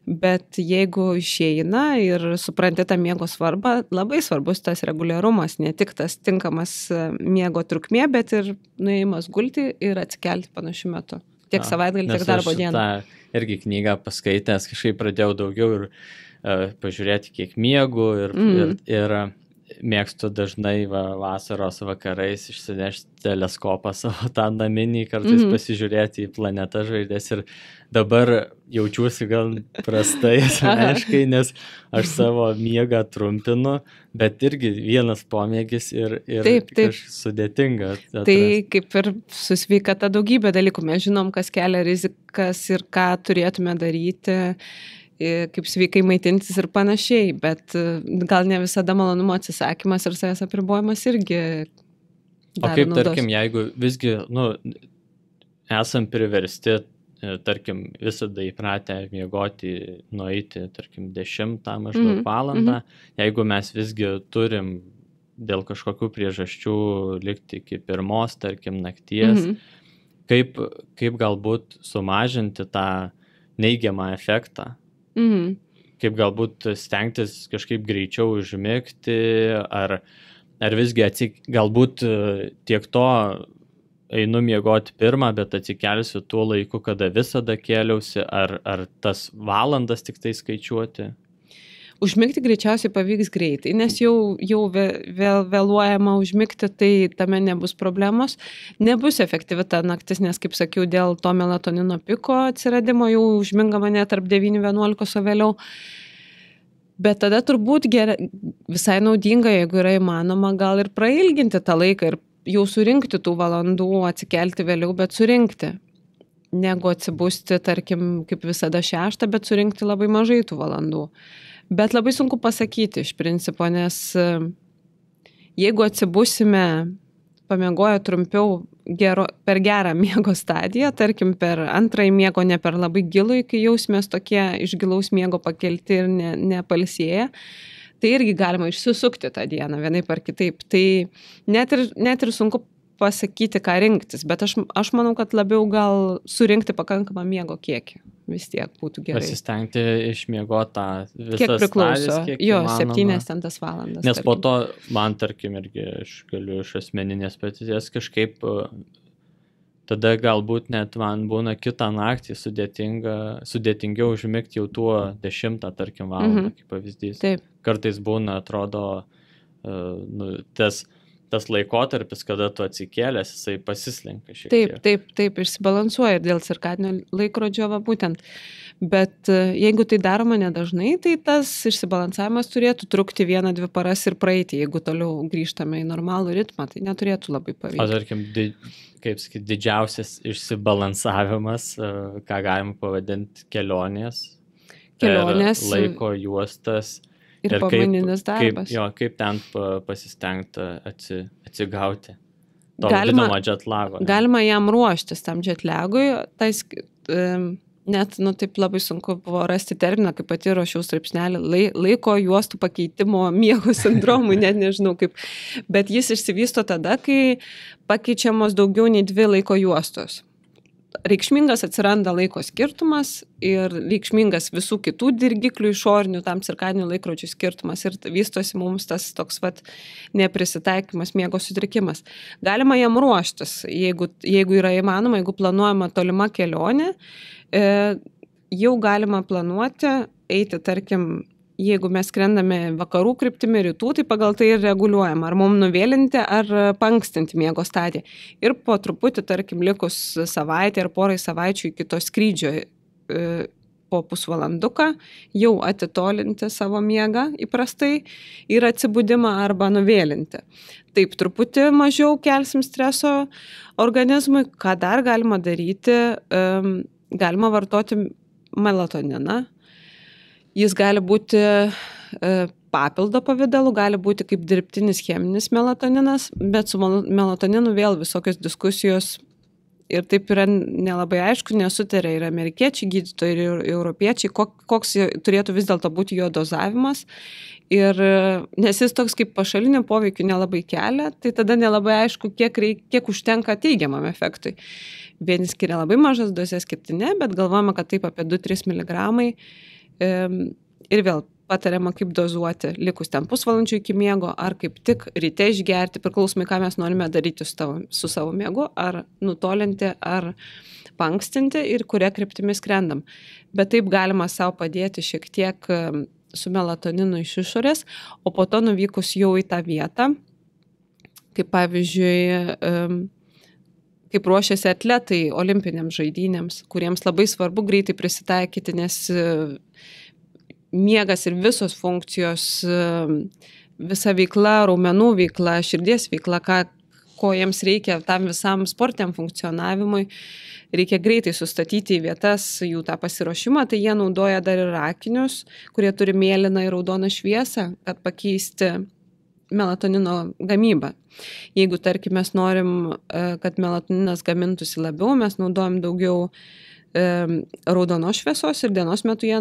Bet jeigu išeina ir supranti tą miego svarbą, labai svarbus tas reguliarumas, ne tik tas tinkamas miego trukmė, bet ir nuėjimas gulti ir atsikelti panašiu metu. Tiek savaitgalį, tiek darbo dieną. Nes aš tą irgi knygą paskaitęs, kažkaip pradėjau daugiau ir pažiūrėti, kiek miegu ir mėgstu dažnai vasaros vakarais išsinešti teleskopą savo tą naminį, kartais pasižiūrėti į planetą žvaigždės ir dabar jaučiuosi gal prastai asmeniškai, nes aš savo miegą trumpinu, bet irgi vienas pomėgis ir taip. Sudėtinga. Tai kaip ir su sveikata daugybė dalykų. Mes žinom, kas kelia rizikas ir ką turėtume daryti, kaip sveikai maitintis ir panašiai, bet gal ne visada malonumo atsisakymas ir savęs apribojimas irgi daro naudos. O kaip, tarkim, jeigu visgi, esam priversti, tarkim, visada įpratę miegoti, nueiti, tarkim, 10 maždaug valandą, jeigu mes visgi turim dėl kažkokių priežasčių likti iki 1, tarkim, nakties, kaip galbūt sumažinti tą neigiamą efektą? Kaip galbūt stengtis kažkaip greičiau užmigti, ar visgi galbūt tiek to einu miegoti 1, bet atsikelsiu tuo laiku, kada visada kėliausi, ar tas valandas tik tai skaičiuoti? Užmigti greičiausiai pavyks greitai, nes jau vėluojama užmigti, tai tame nebus problemos. Nebus efektyvi ta naktis, nes, kaip sakiau, dėl to melatonino piko atsiradimo jau užmingama net tarp 9-11, o vėliau. Bet tada turbūt visai naudinga, jeigu yra įmanoma, gal ir prailginti tą laiką ir jau surinkti tų valandų, atsikelti vėliau, bet surinkti. Negu atsibusti, tarkim, kaip visada 6, bet surinkti labai mažai tų valandų. Bet labai sunku pasakyti iš principo, nes jeigu atsibusime pamiegoję trumpiau per gerą miego stadiją, tarkim per antrąjį miego, ne per labai gilų, kai jausimės tokie iš gilaus miego pakelti ir nepalsėję, tai irgi galima išsisukti tą dieną vienaip ar kitaip. Tai net ir sunku pasakyti, ką rinktis, bet aš manau, kad labiau gal surinkti pakankamą miego kiekį. Vis tiek būtų gerai. Pasistengti išmiegoti tą visas kiek priklauso. Kiek jo, įmanoma. 7 valandas. Nes po to man, tarkim, irgi aš galiu iš asmeninės patirties kažkaip tada galbūt net man būna kitą naktį sudėtingiau užmigti jau tuo 10, tarkim, valandą, kaip pavyzdys. Taip. Kartais būna, atrodo, tas laikotarpis, kada tu atsikėlęs, jisai pasislenka šiek tiek. Taip, išsibalansuoja ir dėl cirkadinio laikrodžio būtent. Bet jeigu tai daroma nedažnai, tai tas išsibalansavimas turėtų trukti 1-2 paras ir praeiti. Jeigu toliau grįžtame į normalų ritmą, tai neturėtų labai pavykti. O tarkim, kaip sakyti, didžiausias išsibalansavimas, ką galima pavadinti kelionės, laiko juostas. Ir pamaininis darbas. Kaip ten pasistengti atsigauti to vadinamo jetlago. Galima jam ruoštis tam jetlagui, net taip labai sunku buvo rasti terminą, kaip pati ruošiau straipsnelį, laiko juostų pakeitimo miego sindromui, net nežinau kaip, bet jis išsivysto tada, kai pakeičiamos daugiau nei 2 laiko juostos. Reikšmingas atsiranda laiko skirtumas ir reikšmingas visų kitų dirgiklių išorinių tam cirkadinių laikrodžių skirtumas ir vystosi mums tas toks neprisitaikymas, miego sutrikimas. Galima jam ruoštis, jeigu yra įmanoma, jeigu planuojama tolima kelionė, jau galima planuoti, eiti, tarkim, jeigu mes skrendame vakarų kryptimi, rytų, tai pagal tai ir reguliuojam, ar mums nuvėlinti, ar pankstinti miego stadiją. Ir po truputį, tarkim, likus savaitę ar porai savaičių iki to skrydžio po pusvalanduką, jau atitolinti savo miegą įprastai ir atsibudimą arba nuvėlinti. Taip, truputį mažiau kelsim streso organizmui. Ką dar galima daryti? Galima vartoti melatoniną. Jis gali būti papildo pavidalu, gali būti kaip dirbtinis cheminis melatoninas, bet su melatoninu vėl visokios diskusijos ir taip yra nelabai aišku, nesutarė ir amerikiečiai gydytojai, ir europiečiai, koks turėtų vis dėlto būti jo dozavimas. Ir nes jis toks kaip pašalinio poveikio nelabai kelia, tai tada nelabai aišku, kiek užtenka teigiamam efektui. Vieni skiria labai mažas dozes, kiti ne, bet galvojame, kad taip apie 2-3 mg Ir vėl patariama, kaip dozuoti likus ten pusvalandžių iki miego, ar kaip tik ryte išgerti, priklausomai, ką mes norime daryti su savo miegu, ar nutolinti, ar pankstinti ir kuria kryptimi skrendam. Bet taip galima savo padėti šiek tiek su melatoninu iš išorės, o po to nuvykus jau į tą vietą, kaip pavyzdžiui, kaip ruošiasi atletai olimpinėms žaidynėms, kuriems labai svarbu greitai prisitaikyti, nes miegas ir visos funkcijos, visa veikla, raumenų veikla, širdies veikla, ko jiems reikia tam visam sportiniam funkcionavimui, reikia greitai sustatyti į vietas jų tą pasiruošimą, tai jie naudoja dar ir akinius, kurie turi mėlyną ir raudoną šviesą, kad pakeisti melatonino gamybą. Jeigu, tarkim, mes norim, kad melatoninas gamintųsi labiau, mes naudojam daugiau raudonos šviesos ir dienos metu jie,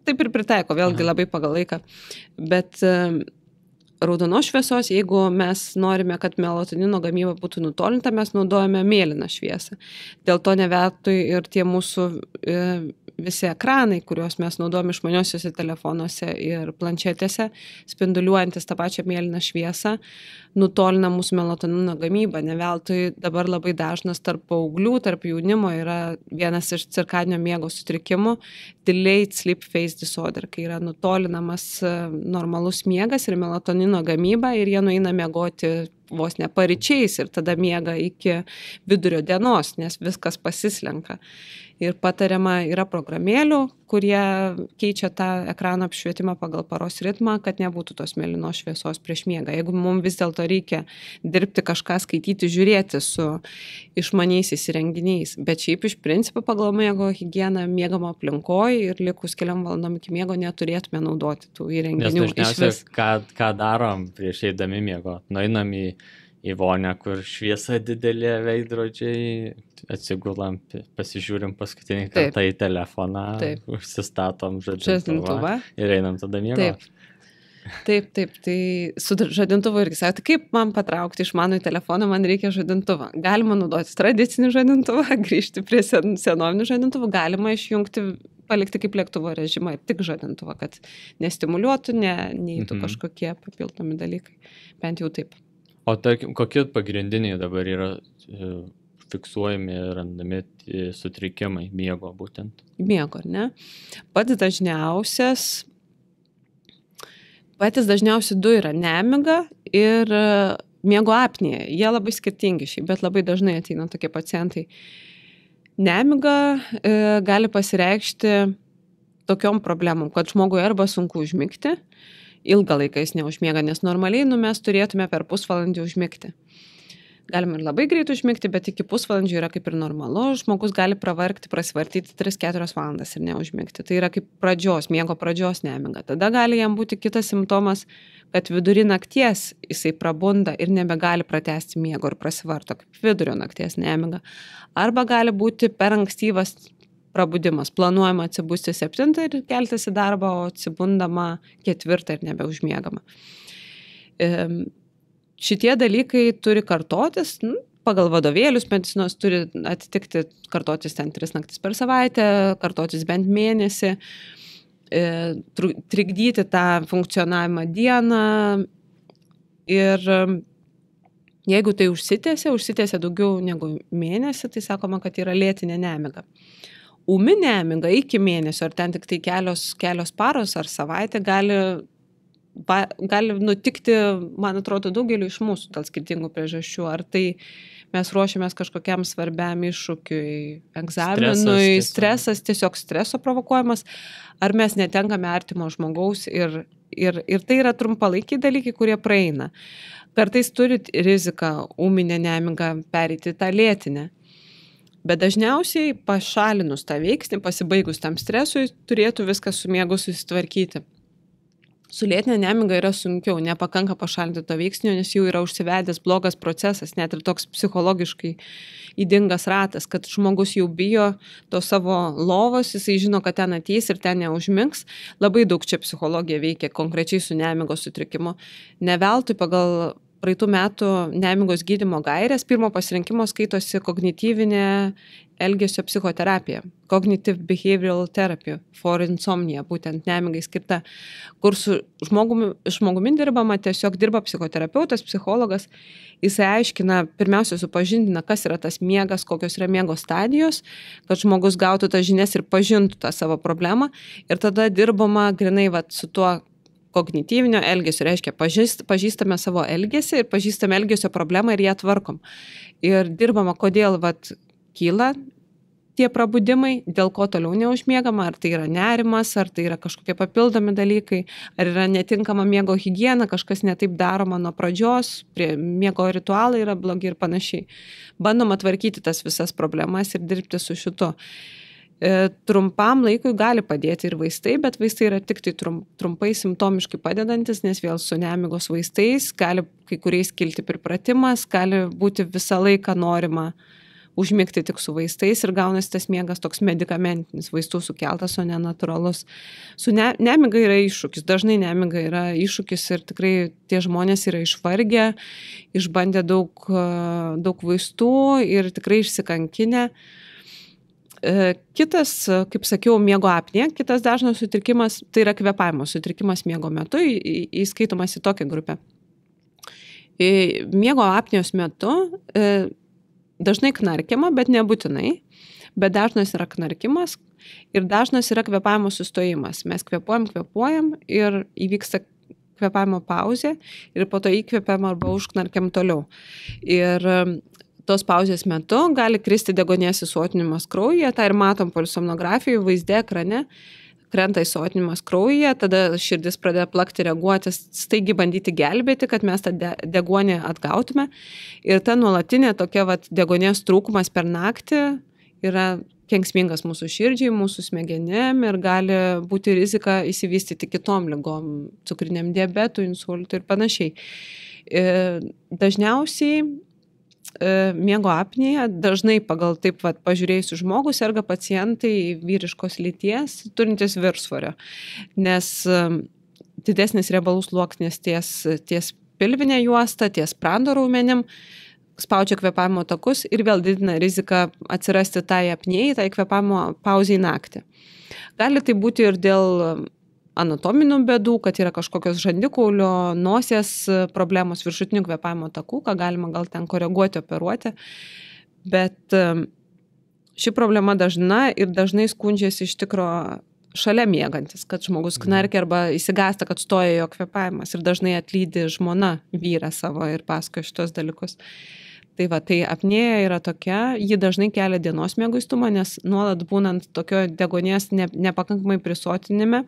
taip ir pritaiko, vėlgi labai pagal laiką, bet raudonos šviesos, jeigu mes norime, kad melatonino gamyba būtų nutolinta, mes naudojame mėlyną šviesą. Dėl to neveltui ir tie mūsų visi ekranai, kuriuos mes naudojame išmaniosiuose telefonuose ir planšetėse, spinduliuojantis tą pačią mėlyną šviesą, nutolina mūsų melatonino gamybą. Neveltui dabar labai dažnas tarp paauglių, tarp jaunimo yra vienas iš cirkadinio miego sutrikimų delayed sleep phase disorder, kai yra nutolinamas normalus miegas ir melatonino gamyba ir jie nueina miegoti vos ne paryčiais ir tada miega iki vidurio dienos, nes viskas pasislenka. Ir patariama yra programėlių, kurie keičia tą ekrano apšvietimą pagal paros ritmą, kad nebūtų tos mėlynos šviesos prieš miegą. Jeigu mums vis dėlto reikia dirbti kažką, skaityti, žiūrėti su išmaniaisiais įrenginiais, bet šiaip iš principo pagal miego higieną miegamo aplinkoje ir likus keliom valandom iki miego neturėtume naudoti tų įrenginių. Nes dažniausiai, ką darom prieš eidami miego? Nueinam į vonią, kur šviesa didelė, veidrodžiai, atsigulam, pasižiūrim paskutinį kartą į telefoną, užsistatom žadintuvą ir einam tada miegoti. Taip, tai su žadintuvu irgi sakė, kaip man patraukti iš mano į telefoną, man reikia žadintuvą. Galima naudoti tradicinį žadintuvą, grįžti prie senovinių žadintuvų, galima išjungti, palikti kaip lėktuvo režimą ir tik žadintuvą, kad nestimuliuotų, neįtų kažkokie papildomi dalykai. Bent jau taip. O tarkim, kokie pagrindiniai dabar yra fiksuojami ir randami sutrikimai miego būtent? Miego, ar ne? Patys dažniausi du yra nemiga ir miego apnėja. Jie labai skirtingi šiaip, bet labai dažnai ateina tokie pacientai. Nemiga gali pasireikšti tokiom problemom, kad žmogui arba sunku užmigti, ilgą laiką jis neužmiega, nes normaliai mes turėtume per pusvalandį užmigti. Galima ir labai greit užmigti, bet iki pusvalandžio yra kaip ir normalu, žmogus gali pravargti, prasivartyti 3-4 valandas ir neužmigti. Tai yra kaip miego pradžios nemiga. Tada gali jam būti kitas simptomas, kad vidury nakties jisai prabunda ir nebegali pratęsti miego ir prasivarto kaip vidurio nakties nemiga. Arba gali būti per ankstyvas prabudimas. Planuojama atsibusti 7 ir keltis į darbą, o atsibundama 4 ir nebeužmiegama. Šitie dalykai turi kartotis, pagal vadovėlius medicinos turi atitikti, kartotis ten 3 naktis per savaitę, kartotis bent mėnesį, trikdyti tą funkcionavimą dieną ir jeigu tai užsitęsia daugiau negu mėnesį, tai sakoma, kad yra lėtinė nemiga. Ūmi nemiga iki mėnesio, ar ten tik tai kelios paros ar savaitė gali nutikti, man atrodo, daugeliu iš mūsų dėl skirtingų priežasčių. Ar tai mes ruošiamės kažkokiam svarbiam iššūkiui, egzaminui, stresas, tiesiog streso provokuojamas, ar mes netenkame artimo žmogaus ir tai yra trumpalaikiai dalykai, kurie praeina. Kartais turi riziką ūminę nemigą pereiti tą lėtinę. Bet dažniausiai pašalinus tą veiksnį, pasibaigus tam stresui, turėtų viskas su miegu susitvarkyti. Su lėtinė nemiga yra sunkiau, nepakanka pašalinti to veiksnio, nes jau yra užsivedęs blogas procesas, net ir toks psichologiškai ydingas ratas, kad žmogus jau bijo to savo lovos, jisai žino, kad ten ateis ir ten neužmigs. Labai daug čia psichologija veikia konkrečiai su nemigos sutrikimu. Ne veltui pagal praeitų metų nemigos gydymo gairės, pirmo pasirinkimo skaitosi kognityvinė elgesio psichoterapija, Cognitive Behavioral Therapy for Insomnia, būtent nemigai skirta, kur su žmogumi dirbama, tiesiog dirba psichoterapeutas, psichologas, jisai aiškina, pirmiausia supažindina, kas yra tas miegas, kokios yra miego stadijos, kad žmogus gautų tas žinias ir pažintų tą savo problemą, ir tada dirbama grinai su tuo kognityvinio elgesio, reiškia, pažįstame savo elgesį ir pažįstame elgesio problemą ir ją tvarkom. Ir dirbama, kodėl kyla tie prabudimai, dėl ko toliau neužmiegama, ar tai yra nerimas, ar tai yra kažkokie papildomi dalykai, ar yra netinkama miego higiena, kažkas netaip daroma nuo pradžios, miego ritualai yra blogi ir panašiai. Bandoma tvarkyti tas visas problemas ir dirbti su šitu. Trumpam laikui gali padėti ir vaistai, bet vaistai yra tik tai trumpai simptomiškai padedantis, nes vėl su nemigos vaistais gali kai kuriais kilti pripratimas, gali būti visą laiką norima užmigti tik su vaistais ir gaunasi tas miegas toks medikamentinis, vaistų sukeltas, o ne natūralus. Su nemiga yra iššūkis, dažnai nemiga yra iššūkis ir tikrai tie žmonės yra išvargę, išbandę daug vaistų ir tikrai išsikankinę. Kitas, kaip sakiau, miego apnėja, kitas dažnas sutrikimas, tai yra kvėpavimo sutrikimas miego metu, įskaitomas į tokią grupę. Miego apnėjos metu dažnai knarkiama, bet nebūtinai, bet dažnas yra knarkimas ir dažnas yra kvėpavimo sustojimas. Mes kvėpuojam ir įvyksta kvėpavimo pauzė ir po to įkvėpiam arba užknarkiam toliau. Ir tos pauzės metu gali kristi deguonies įsotinimas kraujyje, tą ir matom polisomnografijoje, vaizde ekrane, krenta įsotinimas kraujyje, tada širdis pradeda plakti, reaguoti, staigi bandyti gelbėti, kad mes tą deguonį atgautume. Ir ta nuolatinė tokia deguonies trūkumas per naktį yra kenksmingas mūsų širdžiai, mūsų smegenėm ir gali būti rizika įsivystyti kitom ligom, cukriniam diabetui, insultui ir panašiai. Dažniausiai miego apnėja, dažnai pagal taip pažiūrėjusių žmogų serga pacientai vyriškos lyties turintis viršsvorio, nes didesnis riebalų sluoksnis ties pilvinė juosta, ties sprando raumenim, spaudžia kvėpavimo takus ir vėl didina riziką atsirasti tai apnėjai, tai kvėpavimo pauzei naktį. Gali tai būti ir dėl anatominių bėdų, kad yra kažkokios žandikaulio, nosies problemos, viršutinių kvėpavimo takų, ką galima gal ten koreguoti, operuoti. Bet ši problema dažna ir dažnai skundžiasi iš tikro šalia miegantis, kad žmogus knarkia arba įsigąsta, kad stoja jo kvėpavimas ir dažnai atlydi žmona vyrą savo ir pasakoja šitos dalykus. Tai apnėja yra tokia, ji dažnai kelia dienos mieguistumą, nes nuolat būnant tokio deguonies nepakankamai prisotinime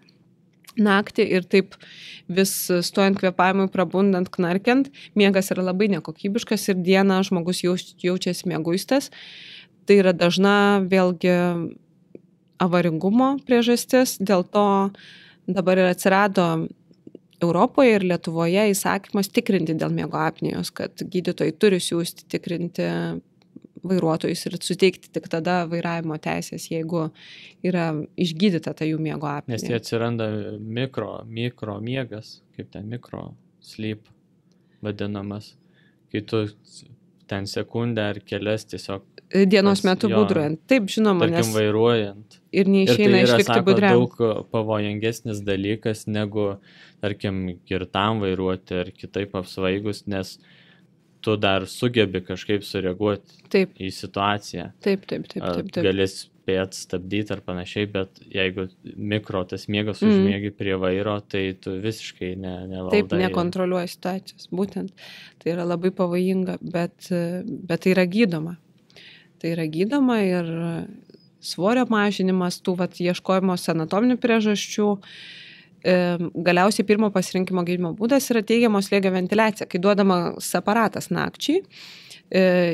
naktį ir taip vis stojant kvėpavimui, prabundant, knarkiant, miegas yra labai nekokybiškas ir dieną žmogus jaučiasi mieguistas. Tai yra dažna vėlgi avaringumo priežastis, dėl to dabar ir atsirado Europoje ir Lietuvoje įsakymas tikrinti dėl miego apnėjos, kad gydytojai turi siųsti tikrinti vairuotojus ir suteikti tik tada vairavimo teisės, jeigu yra išgydyta ta jų miego apnėja. Nes tai atsiranda mikro miegas, kaip ten mikro sleep vadinamas, kai tu ten sekundę ar kelias tiesiog dienos metu būdraujant. Taip, žinoma, tarkim, vairuojant. Ir neišeina išlikti budriam. Ir tai yra, daug pavojingesnis dalykas negu, tarkim, girtam vairuoti ar kitaip apsvaigus, nes tu dar sugebi kažkaip sureaguoti į situaciją. Taip. Gali spėt stabdyti ar panašiai, bet jeigu tas miegas užmiegi prie vairo, tai tu visiškai nevaldai. Taip, nekontroliuoji situacijos, būtent. Tai yra labai pavojinga, bet tai yra gydoma. Tai yra gydoma ir svorio mažinimas, tų ieškojimo anatominių priežasčių. Galiausiai pirmo pasirinkimo gydymo būdas yra teigiamo slėgio ventiliacija, kai duodamas aparatas nakčiai,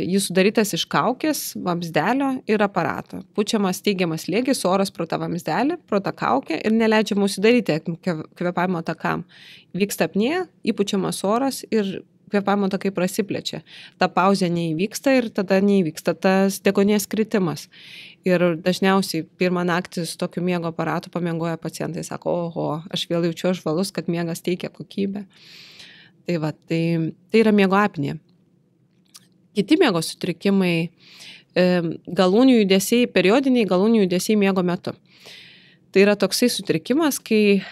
jis sudarytas iš kaukės, vamzdelio ir aparato. Pučiamas teigiamas slėgis, oras pro tą vamzdelį, pro tą kaukę ir neleidžiama užsidaryti kvėpavimo takam. Vyksta apnėja, įpučiamas oras ir kvėpavimo takai prasiplečia. Ta pauzė neįvyksta ir tada neįvyksta tas deguonies kritimas. Ir dažniausiai pirmą naktį su tokiu miego aparatu pamiegoja pacientai, sako, oho, aš vėl jaučiu žvalus, kad miegas teikia kokybę. Tai yra miego apnėja. Kiti miego sutrikimai, galūnių judesiai, periodiniai galūnių judesiai miego metu. Tai yra toksai sutrikimas, kai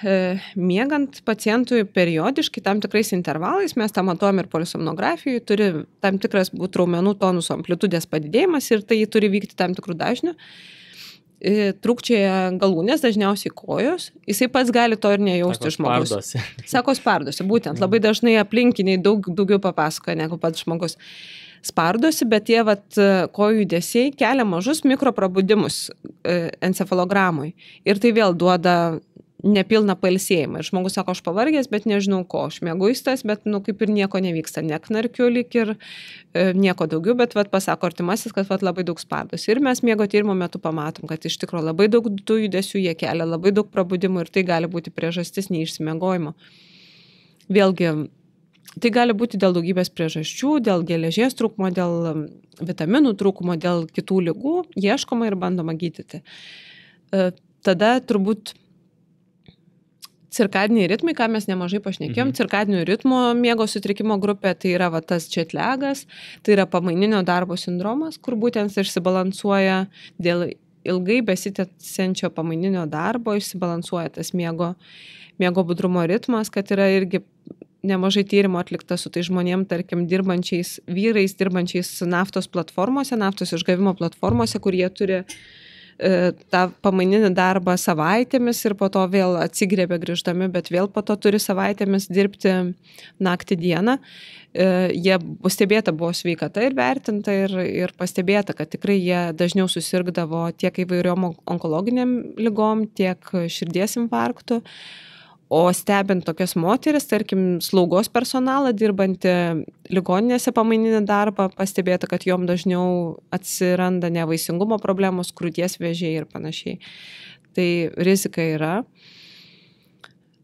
miegant pacientui periodiškai tam tikrais intervalais, mes tą matuojam ir polisomnografijoje, turi tam tikras būti raumenų tonuso amplitudės padidėjimas ir tai turi vykti tam tikrų dažnių. Trūkčioja galūnės, dažniausiai kojos, jisai pats gali to ir nejausti žmogus. Sako spardosi, būtent, labai dažnai aplinkiniai daugiau papasakoja negu pats žmogus. Spardosi, bet tie kojų judesiai kelia mažus mikroprabudimus encefalogramui. Ir tai vėl duoda nepilną pailsėjimą. Ir žmogus sako, aš pavargęs, bet nežinau ko, aš mieguistas, bet kaip ir nieko nevyksta, neknarkiu lyg ir nieko daugiau, bet pasako artimasis, kad labai daug spardosi. Ir mes miego tyrimo metu pamatom, kad iš tikrųjų labai daug tų judesių jie kelia, labai daug prabudimų ir tai gali būti priežastis neišsimiegojimo. Vėlgi, tai gali būti dėl daugybės priežasčių, dėl geležies trūkumo, dėl vitaminų trūkumo, dėl kitų ligų, ieškoma ir bandoma gydyti. Tada turbūt cirkadiniai ritmai, ką mes nemažai pašnekėjom, cirkadinių ritmo miego sutrikimo grupė, tai yra tas četlegas, tai yra pamaininio darbo sindromas, kur būtent išsibalansuoja dėl ilgai besitęsiančio pamaininio darbo, išsibalansuoja tas miego budrumo ritmas, kad yra irgi nemažai tyrimo atlikta su tai žmonėm, tarkim, dirbančiais vyrais, dirbančiais naftos platformose, naftos išgavimo platformose, kur jie turi tą pamaininį darbą savaitėmis ir po to vėl atsigriebia grįždami, bet vėl po to turi savaitėmis dirbti naktį dieną. Jie stebėta buvo sveikata ir vertinta ir pastebėta, kad tikrai jie dažniau susirgdavo tiek įvairiom onkologiniam ligom, tiek širdies infarktų. O stebint tokias moteris, tarkim, slaugos personalą dirbantį ligoninėse pamaininį darbą, pastebėta, kad jom dažniau atsiranda nevaisingumo problemos, krūties vėžiai ir panašiai. Tai rizika yra.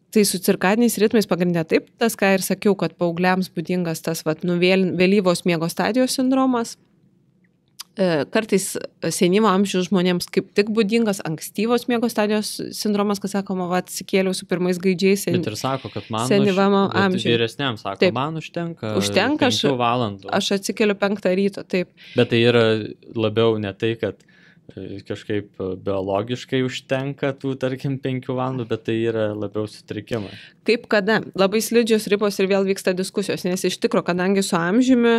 Tai su cirkadiniais ritmais pagrindė taip, tas, ką ir sakiau, kad paaugliams būdingas tas vėlyvos miego stadijos sindromas. Kartais senyvo amžiaus žmonėms kaip tik būdingas ankstyvos miego stadijos sindromas, kad sakoma, atsikėliau su pirmais gaidžiais. Bet ir sako, kad man vyresniam sako, taip, man užtenka 5 valandų. Aš atsikeliu 5 ryto, taip. Bet tai yra labiau ne tai, kad kažkaip biologiškai užtenka tų, tarkim, 5 valandų, bet tai yra labiau sutrikimai. Kaip kada? Labai slidžios ribos ir vėl vyksta diskusijos, nes iš tikro, kadangi su amžiumi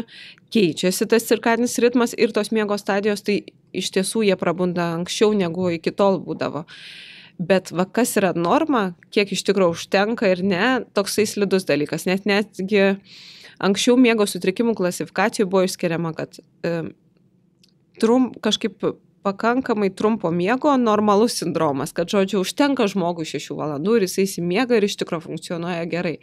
keičiasi tas cirkadinis ritmas ir tos miego stadijos, tai iš tiesų jie prabunda anksčiau negu iki tol būdavo. Bet kas yra norma, kiek iš tikro užtenka ir ne, toksai slidus dalykas. Netgi anksčiau miego sutrikimų klasifikacijų buvo išskiriama, kad kažkaip pakankamai trumpo miego normalus sindromas, kad, žodžiu, užtenka žmogui 6 valandų ir jisai įsimiega ir iš tikro funkcionuoja gerai.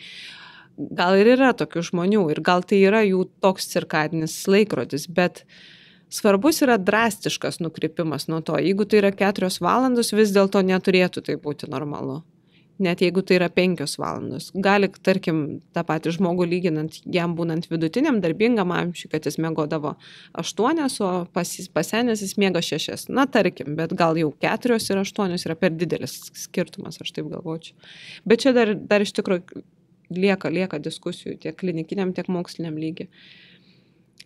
Gal ir yra tokių žmonių ir gal tai yra jų toks cirkadinis laikrodis, bet svarbus yra drastiškas nukrypimas nuo to. Jeigu tai yra 4 valandos, vis dėlto neturėtų tai būti normalu. Net jeigu tai yra 5 valandos. Gali, tarkim, tą patį žmogų lyginant, jam būnant vidutiniam darbingam amžiui, kad jis miegodavo 8, o pasenęs jis miega 6. Na, tarkim, bet gal jau 4 ir 8 yra per didelis skirtumas, aš taip galvočiau. Bet čia dar iš tikrųjų lieka diskusijų tiek klinikiniam, tiek moksliniam lygiai.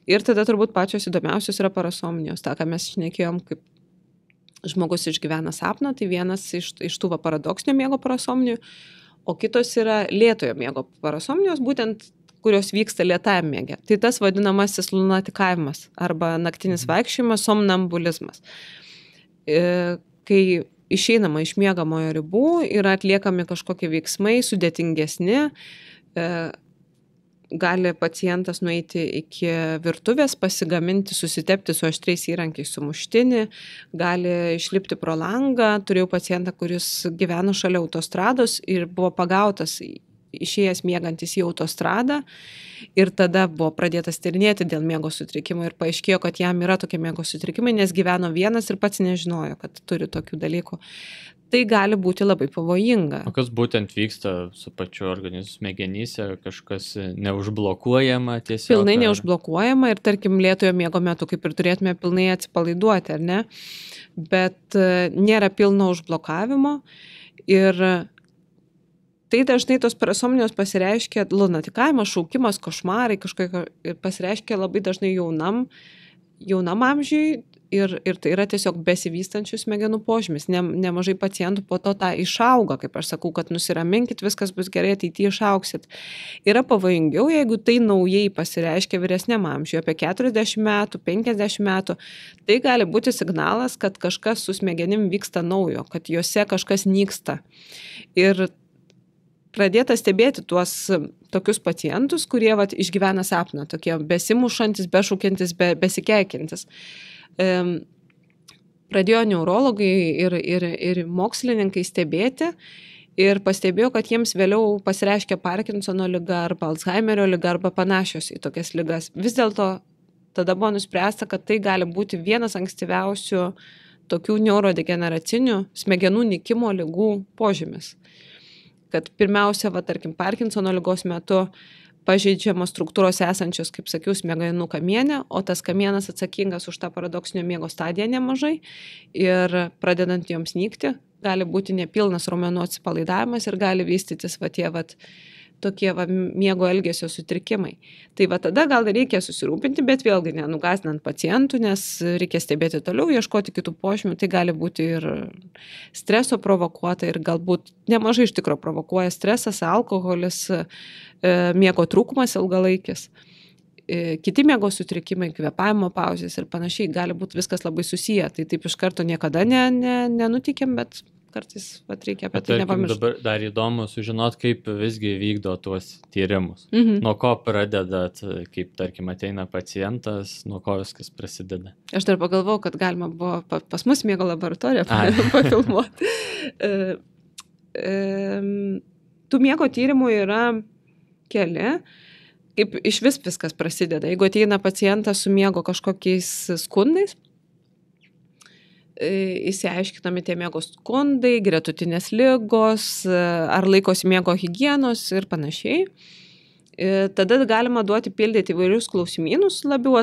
Ir tada turbūt pačios įdomiausios yra parasomnijos, tą, ką mes šnekėjom, kaip žmogus išgyvena sapną, tai vienas iš tų paradoksinio miego parasomnijų, o kitos yra lėtojo miego parasomnijos, būtent kurios vyksta lėtajam miege. Tai tas vadinamasis lunatikavimas arba naktinis vaikščiojimas, somnambulizmas. Kai išeinama iš miegamojo ribų, yra atliekami kažkokie veiksmai sudėtingesni, gali pacientas nueiti iki virtuvės, pasigaminti, susitepti su aštriais įrankiais sumuštinį, gali išlipti pro langą. Turėjau pacientą, kuris gyveno šalia autostrados ir buvo pagautas išėjęs miegantis į autostradą ir tada buvo pradėtas tyrinėti dėl miego sutrikimo ir paaiškėjo, kad jam yra tokie miego sutrikimai, nes gyveno vienas ir pats nežinojo, kad turi tokių dalykų. Tai gali būti labai pavojinga. O kas būtent vyksta su pačiu organizmu smegenyse, kažkas neužblokuojama tiesiog? Pilnai neužblokuojama ir tarkim lėtojo miego metu kaip ir turėtume pilnai atsipalaiduoti, ar ne? Bet nėra pilno užblokavimo ir tai dažnai tos parasomnijos pasireiškia lunatikavimas, šaukimas, košmarai, kažkokie pasireiškia labai dažnai jaunam amžiui ir tai yra tiesiog besivystančių smegenų požymis. Nemažai pacientų po to tą išauga, kaip aš sakau, kad nusiraminkit, viskas bus gerai, ateityje išauksit. Yra pavojingiau, jeigu tai naujai pasireiškia vyresniam amžiui, apie 40 metų, 50 metų, tai gali būti signalas, kad kažkas su smegenim vyksta naujo, kad juose kažkas nyksta. Ir pradėta stebėti tuos tokius pacientus, kurie išgyvena sapną, tokie besimušantis, bešaukiantis, besikeikiantis. Pradėjo neurologai ir mokslininkai stebėti ir pastebėjo, kad jiems vėliau pasireiškia Parkinsono liga arba Alzheimerio liga arba panašios į tokias ligas. Vis dėlto tada buvo nuspręsta, kad tai gali būti vienas ankstyviausių tokių neurodegeneracinių smegenų nykimo ligų požymis. Kad pirmiausia, tarkim, Parkinsono ligos metu pažeidžiamos struktūros esančios, kaip sakiau, smegenų kamiene, o tas kamienas atsakingas už tą paradoksinio miego stadiją nemažai ir pradedant joms nykti, gali būti nepilnas raumenų atsipalaidavimas ir gali vystytis tokie miego elgesio sutrikimai. Tai tada gal reikia susirūpinti, bet vėlgi nenugąsdinant pacientų, nes reikia stebėti toliau, ieškoti kitų požymių. Tai gali būti ir streso provokuota ir galbūt nemažai iš tikro provokuoja stresas, alkoholis, miego trūkumas ilgalaikis. Kiti miego sutrikimai, kvėpavimo pauzės ir panašiai, gali būti viskas labai susiję. Tai taip iš karto niekada nenutikėm, bet kartais reikia apie tai nepamiršti. Dabar dar įdomu sužinot, kaip visgi vykdo tuos tyrimus. Nuo ko pradedat, kaip, tarkim, ateina pacientas, nuo ko viskas prasideda? Aš dar pagalvojau, kad galima buvo pas mus miego laboratoriją pafilmuoti. Tų miego tyrimų yra keli. Kaip iš viskas prasideda. Jeigu ateina pacientas su miego kažkokiais skundais, įsiaiškinami tie miego skundai, gretutinės ligos, ar laikosi miego higienos ir panašiai. Tada galima duoti pildyti įvairius klausimynus, labiau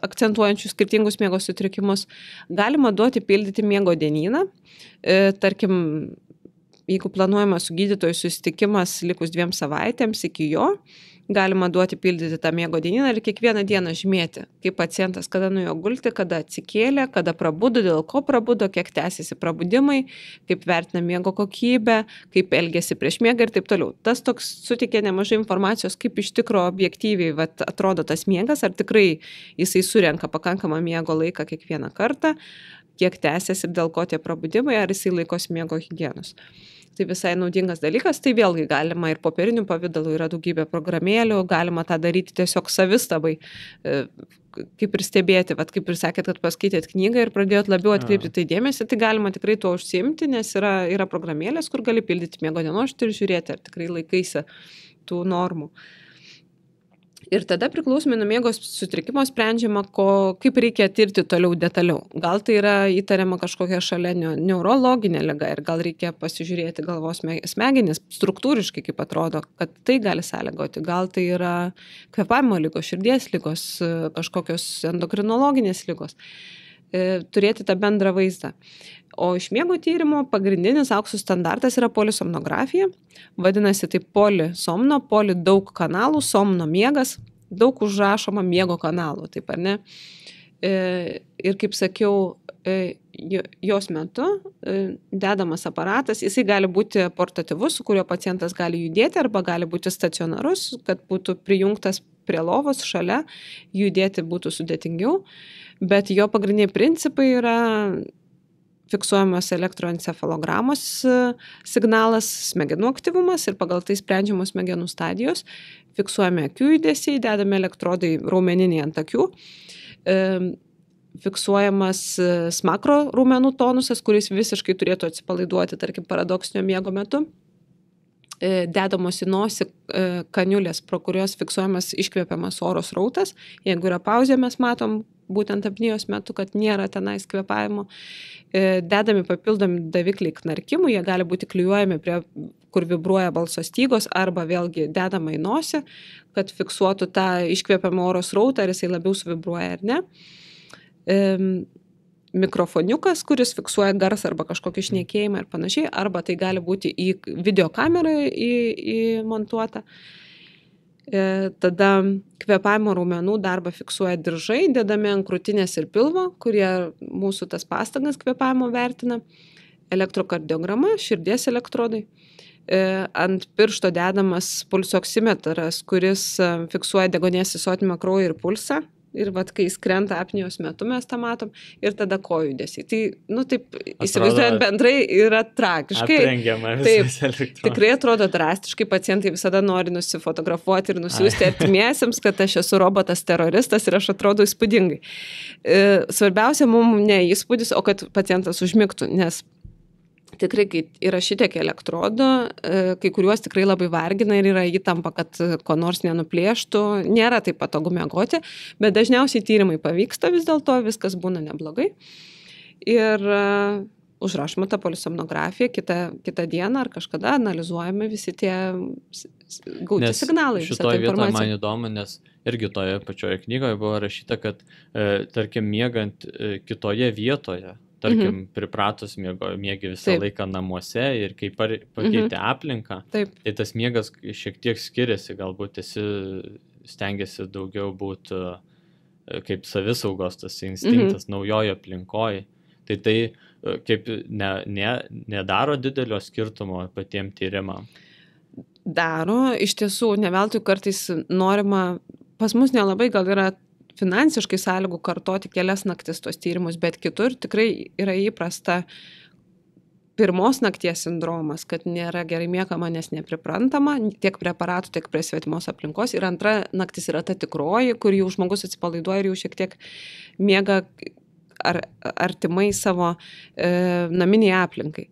akcentuojančius skirtingus miego sutrikimus. Galima duoti pildyti miego dienyną. Tarkim, jeigu planuojama su gydytoju susitikimas likus 2 savaitėms iki jo, galima duoti pildyti tą miego dienyną ir kiekvieną dieną žymėti, kaip pacientas, kada nuėjo gulti, kada atsikėlė, kada prabudo, dėl ko prabudo, kiek tęsiasi prabudimai, kaip vertina miego kokybę, kaip elgėsi prieš miegą ir taip toliau. Tas toks suteikė nemažai informacijos, kaip iš tikro objektyviai atrodo tas miegas, ar tikrai jisai surenka pakankamą miego laiką kiekvieną kartą, kiek tęsiasi ir dėl ko tie prabudimai, ar jisai laikosi miego higienos. Tai visai naudingas dalykas, tai vėlgi galima ir popierinių pavydalų, yra daugybė programėlių, galima tą daryti tiesiog savistabai, kaip ir stebėti, kaip ir sakėt, kad paskaitėt knygą ir pradėjot labiau atkreipti tai dėmesį, tai galima tikrai tuo užsiimti, nes yra programėlės, kur gali pildyti miego dienoraštį ir žiūrėti, ar tikrai laikaisi tų normų. Ir tada priklausomai nuo miego sutrikimo sprendžiama, kaip reikia tirti toliau detaliau. Gal tai yra įtariama kažkokia šalia neurologinė liga ir gal reikia pasižiūrėti galvos smegenis struktūriškai, kaip atrodo, kad tai gali sąlygoti. Gal tai yra kvėpavimo ligos, širdies ligos, kažkokios endokrinologinės ligos. Turėti tą bendrą vaizdą. O iš miego tyrimo pagrindinis aukso standartas yra polisomnografija. Vadinasi, tai polisomno, daug kanalų, somno miegas, daug užrašoma miego kanalų, taip ar ne? Ir kaip sakiau, jos metu dedamas aparatas, jisai gali būti portatyvus, su kuriuo pacientas gali judėti, arba gali būti stacionarus, kad būtų prijungtas prie lovos šalia, judėti būtų sudėtingiau, bet jo pagrindiniai principai yra fiksuojamas elektroencefalogramos signalas, smegenų aktyvumas ir pagal tai sprendžiamos smegenų stadijos, fiksuojami akių judesiai, dedami elektrodai raumeniniai ant akių, fiksuojamas smakro raumenų tonusas, kuris visiškai turėtų atsipalaiduoti, tarkim, paradoksinio miego metu, dedamos į nosį kaniulės, pro kurios fiksuojamas iškvėpiamas oro srautas. Jeigu yra pauzė, mes matom būtent apnėjos metu, kad nėra tenais kvėpavimo. Dedami papildomi davikliai knarkimų, jie gali būti klijuojami prie, kur vibruoja balso stygos, arba vėlgi dedama į nosį, kad fiksuotų tą iškvėpiamą oro srautą, ar jisai labiau suvibruoja ar ne. mikrofoniukas, kuris fiksuoja garsą arba kažkokį šnekėjimą ir panašiai, arba tai gali būti į videokamerą įmontuota. Tada kvėpavimo raumenų darbą fiksuoja diržai, dedami ant krūtinės ir pilvo, kurie mūsų tas pastangas kvėpavimo vertina. Elektrokardiograma, širdies elektrodai. Ant piršto dedamas pulsoksimetras, kuris fiksuoja deguonies įsotinimą kraujo ir pulsą. Ir kai jis krenta apnėjos metu, mes tą matom. Ir tada kojų judesiai. Tai, taip, įsivaizduojant bendrai, yra tragiškai. Aprengiama visas elektrodas. Tikrai atrodo drastiškai, pacientai visada nori nusifotografuoti ir nusiųsti artimiesiems, kad aš esu robotas teroristas ir aš atrodo įspūdingai. Svarbiausia mums ne įspūdis, o kad pacientas užmigtų, nes tikrai, kai yra šitiek elektrodų, kai kuriuos tikrai labai vargina ir yra įtampa, kad ko nors nenuplėštų, nėra taip patogu miegoti, bet dažniausiai tyrimai pavyksta vis dėlto, viskas būna neblogai. Ir užrašoma ta polisomnografija, kitą dieną ar kažkada analizuojami visi tie gauti signalai. Šitoje vietoje man įdomu, nes irgi toje pačioje knygoje buvo rašyta, kad tarkim miegant kitoje vietoje, tarkim, pripratus miegi visą laiką namuose ir kai pakeitė aplinką, tai tas miegas šiek tiek skiriasi, galbūt stengiasi daugiau būti kaip savisaugos tas instinktas naujojo aplinkoje. Tai kaip nedaro didelio skirtumo patiems tyrimam? Daro, iš tiesų, ne veltui kartais norima, pas mus nelabai gal yra finansiškai sąlygų kartoti kelias naktis tos tyrimus, bet kitur tikrai yra įprasta pirmos nakties sindromas, kad nėra gerai miegama, nes nepriprantama, tiek preparatų, tiek prie svetimos aplinkos. Ir antra naktis yra ta tikroji, kur jau žmogus atsipalaiduoja ir jau šiek tiek miega artimai savo naminiai aplinkai.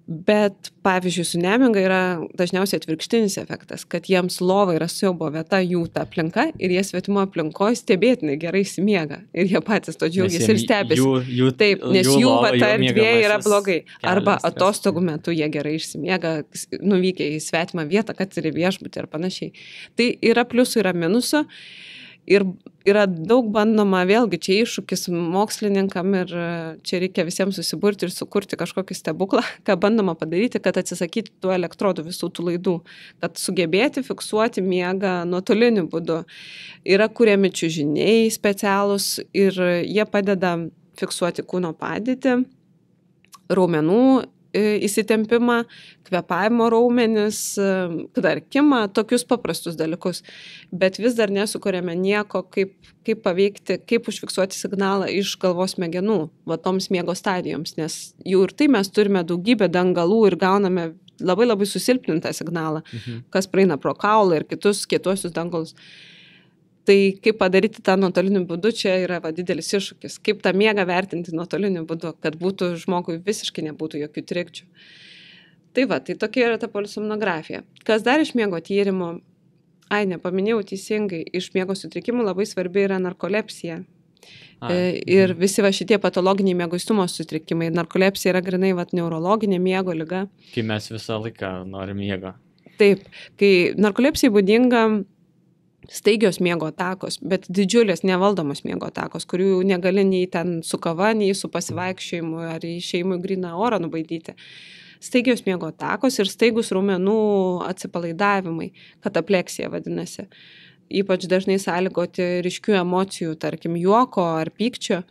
Bet, pavyzdžiui, su nemiga yra dažniausiai atvirkštinis efektas, kad jiems lova yra siaubo vieta, jų ta aplinka ir jie svetimo aplinkoje stebėtinai gerai įsimiega. Ir jie patys to džiaugiasi ir stebisi. Taip, nes jų ta erdvė yra blogai. Arba atostogų metu jie gerai išsimiega, nuvykę į svetimą vietą, kad ir į viešbutį ir panašiai. Tai yra pliusų, yra minusų. Ir yra daug bandoma, vėlgi čia iššūkis mokslininkam ir čia reikia visiems susiburti ir sukurti kažkokį stebuklą, ką bandoma padaryti, kad atsisakyti tų elektrodų visų tų laidų, kad sugebėti fiksuoti miegą nuotoliniu būdu. Yra kuriami čiužiniai specialūs ir jie padeda fiksuoti kūno padėtį, raumenų įsitempimą, kvėpavimo raumenis, knarkimą, tokius paprastus dalykus. Bet vis dar nesukuriame nieko, kaip paveikti, kaip užfiksuoti signalą iš galvos smegenų, va toms miego stadijoms, nes jų ir tai mes turime daugybę dangalų ir gauname labai labai susilpnintą signalą, kas praeina pro kaulą ir kitus kietuosius dangalus. Tai kaip padaryti tą nuotoliniu būdu, čia yra didelis iššūkis. Kaip tą miegą vertinti nuotoliniu būdu, kad būtų žmogui visiškai nebūtų jokių trikdžių. Tai tokia yra ta polisomnografija. Kas dar iš miego tyrimų? Nepaminėjau teisingai, iš miego sutrikimų labai svarbi yra narkolepsija. Ir visi šitie patologiniai mieguistumo sutrikimai. Narkolepsija yra grinai neurologinė miego liga. Kai mes visą laiką norim miego. Taip, kai narkolepsijai būdinga staigios miego atakos, bet didžiulės nevaldomos miego atakos, kurių negali nei ten su kava, nei su pasivaikščiojimu ar išėjimu į gryną orą nubaidyti. Staigios miego atakos ir staigus raumenų atsipalaidavimai, katapleksija vadinasi. Ypač dažnai sąlygoti ryškių emocijų, tarkim juoko ar pykčio.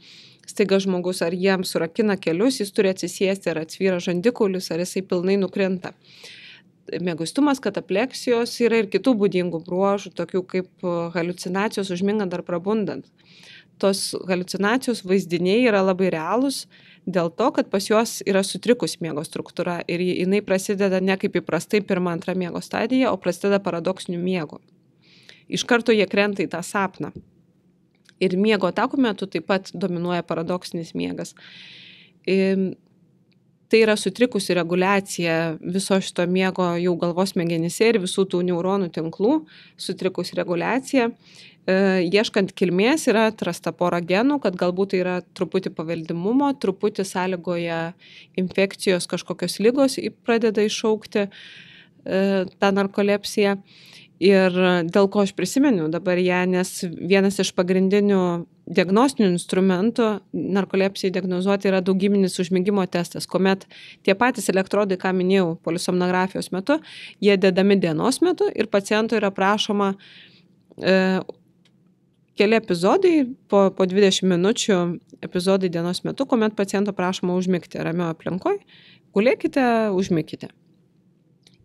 Staiga žmogus ar jiem surakina kelius, jis turi atsisėsti, ar atsvyra žandikaulis, ar jisai pilnai nukrinta. Mieguistumas, katapleksijos yra ir kitų būdingų bruožų, tokių kaip haliucinacijos užmingant ar prabundant. Tos haliucinacijos vaizdiniai yra labai realūs dėl to, kad pas juos yra sutrikus miego struktūra ir jinai prasideda ne kaip įprastai pirma, antra miego stadija, o prasideda paradoksiniu miegu. Iš karto jie krenta į tą sapną. Ir miego atakų metu taip pat dominuoja paradoksinis miegas. Tai yra sutrikusi reguliacija viso šito miego jau galvos smegenyse ir visų tų neuronų tinklų, sutrikusi reguliacija. Ieškant kilmės yra atrasta pora genų, kad galbūt tai yra truputį paveldimumo, truputį sąlygoja infekcijos kažkokios ligos pradeda iššaukti tą narkolepsiją. Ir dėl ko aš prisimenu dabar ją, nes vienas iš pagrindinių diagnostinių instrumentų narkolepsijai diagnozuoti yra daugybinis užmigimo testas, kuomet tie patys elektrodai, ką minėjau, polisomnografijos metu, jie dedami dienos metu ir paciento yra prašoma keli epizodai, po 20 minučių epizodai dienos metu, kuomet paciento prašoma užmigti ramioje aplinkoje, gulėkite, užmigkite.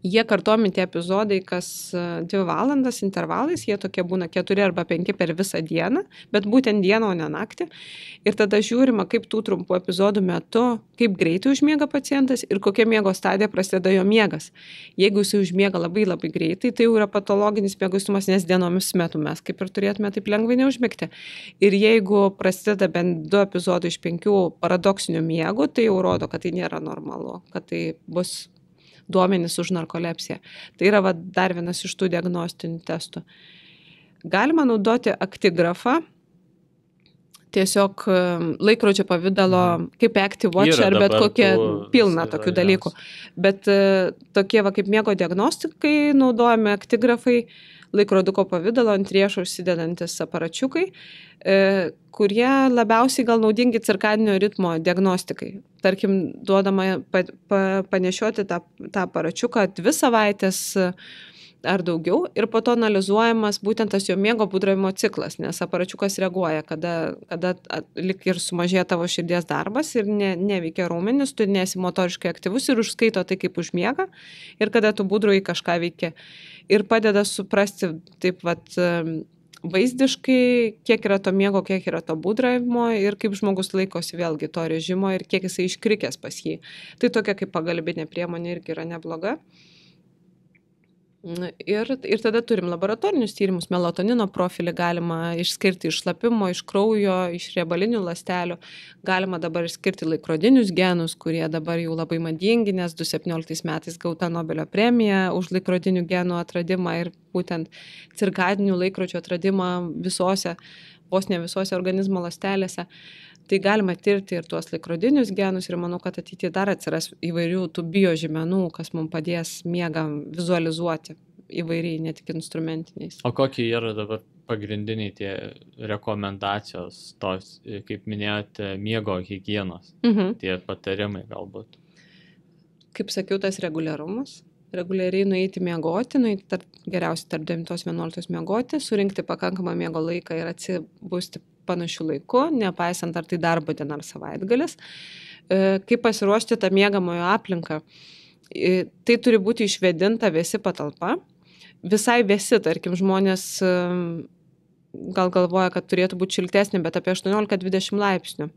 Jie kartojami tie epizodai kas 2 valandas intervalais, jie tokie būna 4 arba 5 per visą dieną, bet būtent dieną, o ne naktį. Ir tada žiūrima, kaip tų trumpų epizodų metu, kaip greitai užmiega pacientas ir kokia miego stadija prasideda jo miegas. Jeigu jis užmiega labai labai greitai, tai jau yra patologinis mieguistumas, nes dienomis metu mes kaip ir turėtume taip lengvai neužmigti. Ir jeigu prasideda bent 2 epizodai iš 5 paradoksinių miegų, tai jau rodo, kad tai nėra normalu, kad tai bus duomenys už narkolepsiją. Tai yra dar vienas iš tų diagnostinių testų. Galima naudoti aktigrafą, tiesiog laikrodžio pavidalo, kaip Active Watch ar bet kokie pilna tokių dalykų. Bet tokie kaip miego diagnostikai naudojami aktigrafai, laikroduko pavidalo ant riešo užsidedantis aparačiukai, kurie labiausiai gal naudingi cirkadinio ritmo diagnostikai. Tarkim, duodama panešioti tą aparačiuką 2 savaitės ar daugiau ir po to analizuojamas būtent tas jo miego būdravimo ciklas, nes aparačiukas reaguoja, kada lik ir sumažėja tavo širdies darbas ir neveikia raumenis, tu nesi motoriškai aktyvus ir užskaito tai kaip užmiega ir kada tu būdrauji kažką veikia. Ir padeda suprasti taip vaizdiškai, kiek yra to miego, kiek yra to būdravimo ir kaip žmogus laikosi vėlgi to režimo ir kiek jisai iškrikęs pas jį. Tai tokia kaip pagalbinė priemonė irgi yra nebloga. Ir tada turim laboratorinius tyrimus, melatonino profilį galima išskirti iš šlapimo, iš kraujo, iš riebalinių ląstelių. Galima dabar išskirti laikrodinius genus, kurie dabar jau labai madingi, nes 2017 metais gauta Nobelio premija už laikrodinių genų atradimą ir būtent cirkadinių laikrodžių atradimą vos ne visose organizmo ląstelėse. Tai galima tirti ir tuos laikrodinius genus ir manau, kad ateityje dar atsiras įvairių tų biožymenų, kas mums padės miegą vizualizuoti įvairiai, ne tik instrumentiniais. O kokie yra dabar pagrindiniai tie rekomendacijos, tos, kaip minėjote, miego higienos, tie patarimai galbūt? Kaip sakiau, tas reguliarumas. Reguliariai nueiti miegoti, geriausiai tarp 9-11 miegoti, surinkti pakankamą miego laiką ir atsibusti panašių laiku, nepaisant ar tai darbo diena ar savaitgalis. Kaip pasiruošti tą miegamojo aplinką. Tai turi būti išvėdinta vėsi patalpa. Visai vėsi, tarkim, žmonės gal galvoja, kad turėtų būti šiltesnė, bet apie 18-20 laipsnių.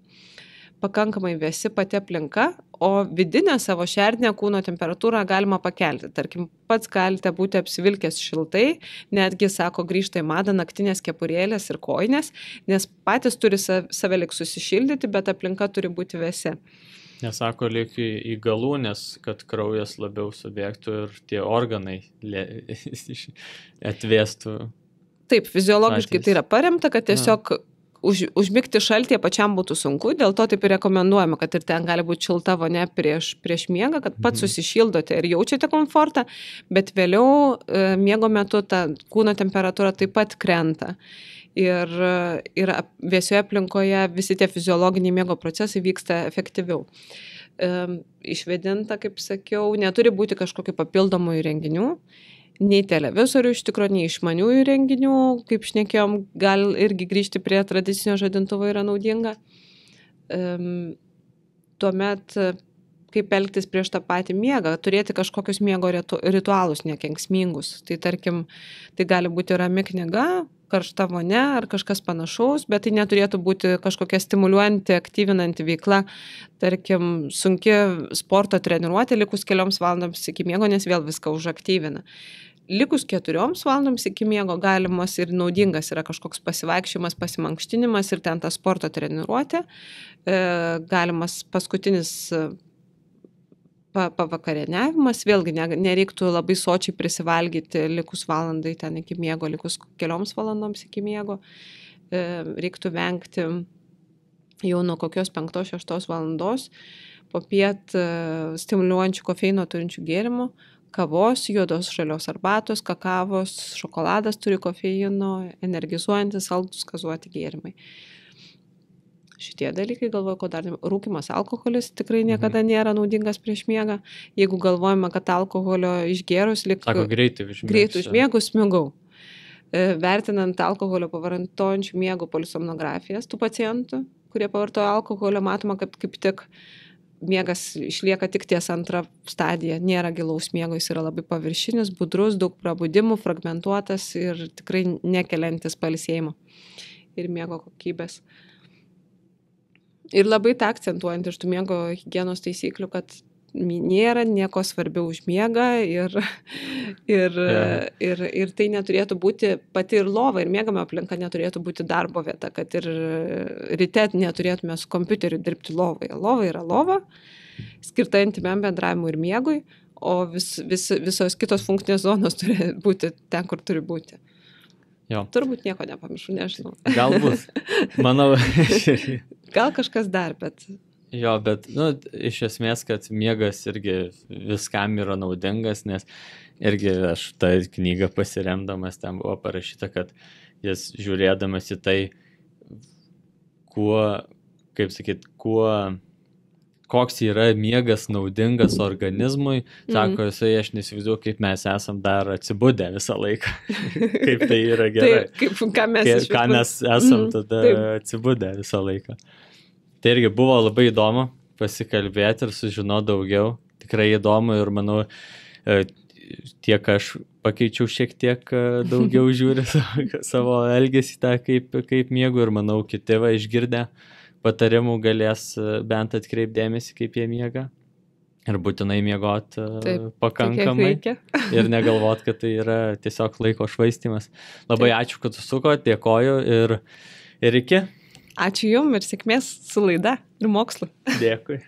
Pakankamai vėsi pati aplinka, o vidinę savo šerdinę kūno temperatūrą galima pakelti. Tarkim, pats galite būti apsivilkęs šiltai, netgi, sako, grįžta į madą naktinės kepurėlės ir kojinės, nes patys turi save lik susišildyti, bet aplinka turi būti vėsi. Nesako, lyg į galūnės, kad kraujas labiau subėgtų ir tie organai atvėstų. Taip, fiziologiškai tai yra paremta, kad tiesiog užmigti šaltyje pačiam būtų sunku, dėl to taip ir rekomenduojama, kad ir ten gali būti šilta vonia prieš miegą, kad pats susišildote ir jaučiate komfortą, bet vėliau miego metu ta kūno temperatūra taip pat krenta. Ir vėsioje aplinkoje visi tie fiziologiniai miego procesai vyksta efektyviau. Išvėdinta, kaip sakiau, neturi būti kažkokių papildomų įrenginių, nei televizorių iš tikrųjų, nei išmaniųjų įrenginių, kaip šnekėjom, gal irgi grįžti prie tradicinio žadintuvo yra naudinga. Tuomet, kaip elgtis prieš tą patį miegą, turėti kažkokius miego ritualus nekenksmingus. Tai tarkim, tai gali būti rami knyga, karšta vonia ar kažkas panašaus, bet tai neturėtų būti kažkokia stimuliuojanti, aktyvinanti veikla, tarkim, sunki sporto treniruotė likus 4 valandoms iki miego, nes vėl viską užaktyvina. Likus 4 valandoms iki miego galimas ir naudingas yra kažkoks pasivaikščiojimas, pasimankštinimas ir ten ta sporto treniruotė, galimas paskutinis pavakarieniavimas, vėlgi nereiktų labai sočiai prisivalgyti likus valandai ten iki miego, likus 4 valandoms iki miego. Reiktų vengti jau nuo kokios 5-6 valandos popiet stimuliuojančių kofeino turinčių gėrimų, kavos, juodos žalios arbatos, kakavos, šokoladas turi kofeino, energizuojantis, saldūs gazuoti gėrimai. Šitie dalykai, galvoju, ko dar rūkimas alkoholis tikrai niekada nėra naudingas prieš miegą. Jeigu galvojame, kad alkoholio išgėrus Sako, greitai užmiegus smigau. Vertinant alkoholio pavartojančių miegų polisomnografijas tų pacientų, kurie pavartoja alkoholio, matoma, kad kaip tik miegas išlieka tik ties antrą stadiją. Nėra gilaus miego, jis yra labai paviršinis, budrus, daug prabudimų, fragmentuotas ir tikrai nekeliantis pailsėjimo ir miego kokybės. Ir labai tą akcentuojant iš tų miego higienos taisyklių, kad nėra nieko svarbiau už miegą ir tai neturėtų būti pati ir lova, ir miegama aplinka neturėtų būti darbo vieta, kad ir ryte neturėtume su kompiuteriu dirbti lovoje. Lova yra lova, skirta intymiam bendravimui ir miegui, o visos kitos funkcinės zonos turi būti ten, kur turi būti. Jo. Turbūt nieko nepamiršau, nežinau. Galbūt, manau. Gal kažkas dar, bet... Jo, bet, iš esmės, kad miegas irgi viskam yra naudingas, nes irgi aš tą knygą pasiremdamas, ten buvo parašyta, kad jis žiūrėdamas į tai, koks yra miegas naudingas organizmui, sako, aš nesivaizduoju, kaip mes esam dar atsibudę visą laiką, kaip tai yra gerai. Ką mes esam tada atsibudę visą laiką. Tai irgi buvo labai įdomu pasikalbėti ir sužinoti daugiau. Tikrai įdomu ir manau, tiek aš pakeičiau šiek tiek daugiau žiūri savo elgesį tą, kaip miegu, ir manau, kiti išgirdę patarimų galės bent atkreipdėmėsi, kaip jie miega. Ir būtinai miegot pakankamai. Ir negalvot, kad tai yra tiesiog laiko švaistymas. Labai ačiū, kad susukot, dėkoju ir iki. Ačiū jum ir sėkmės su laida ir mokslu. Dėkui.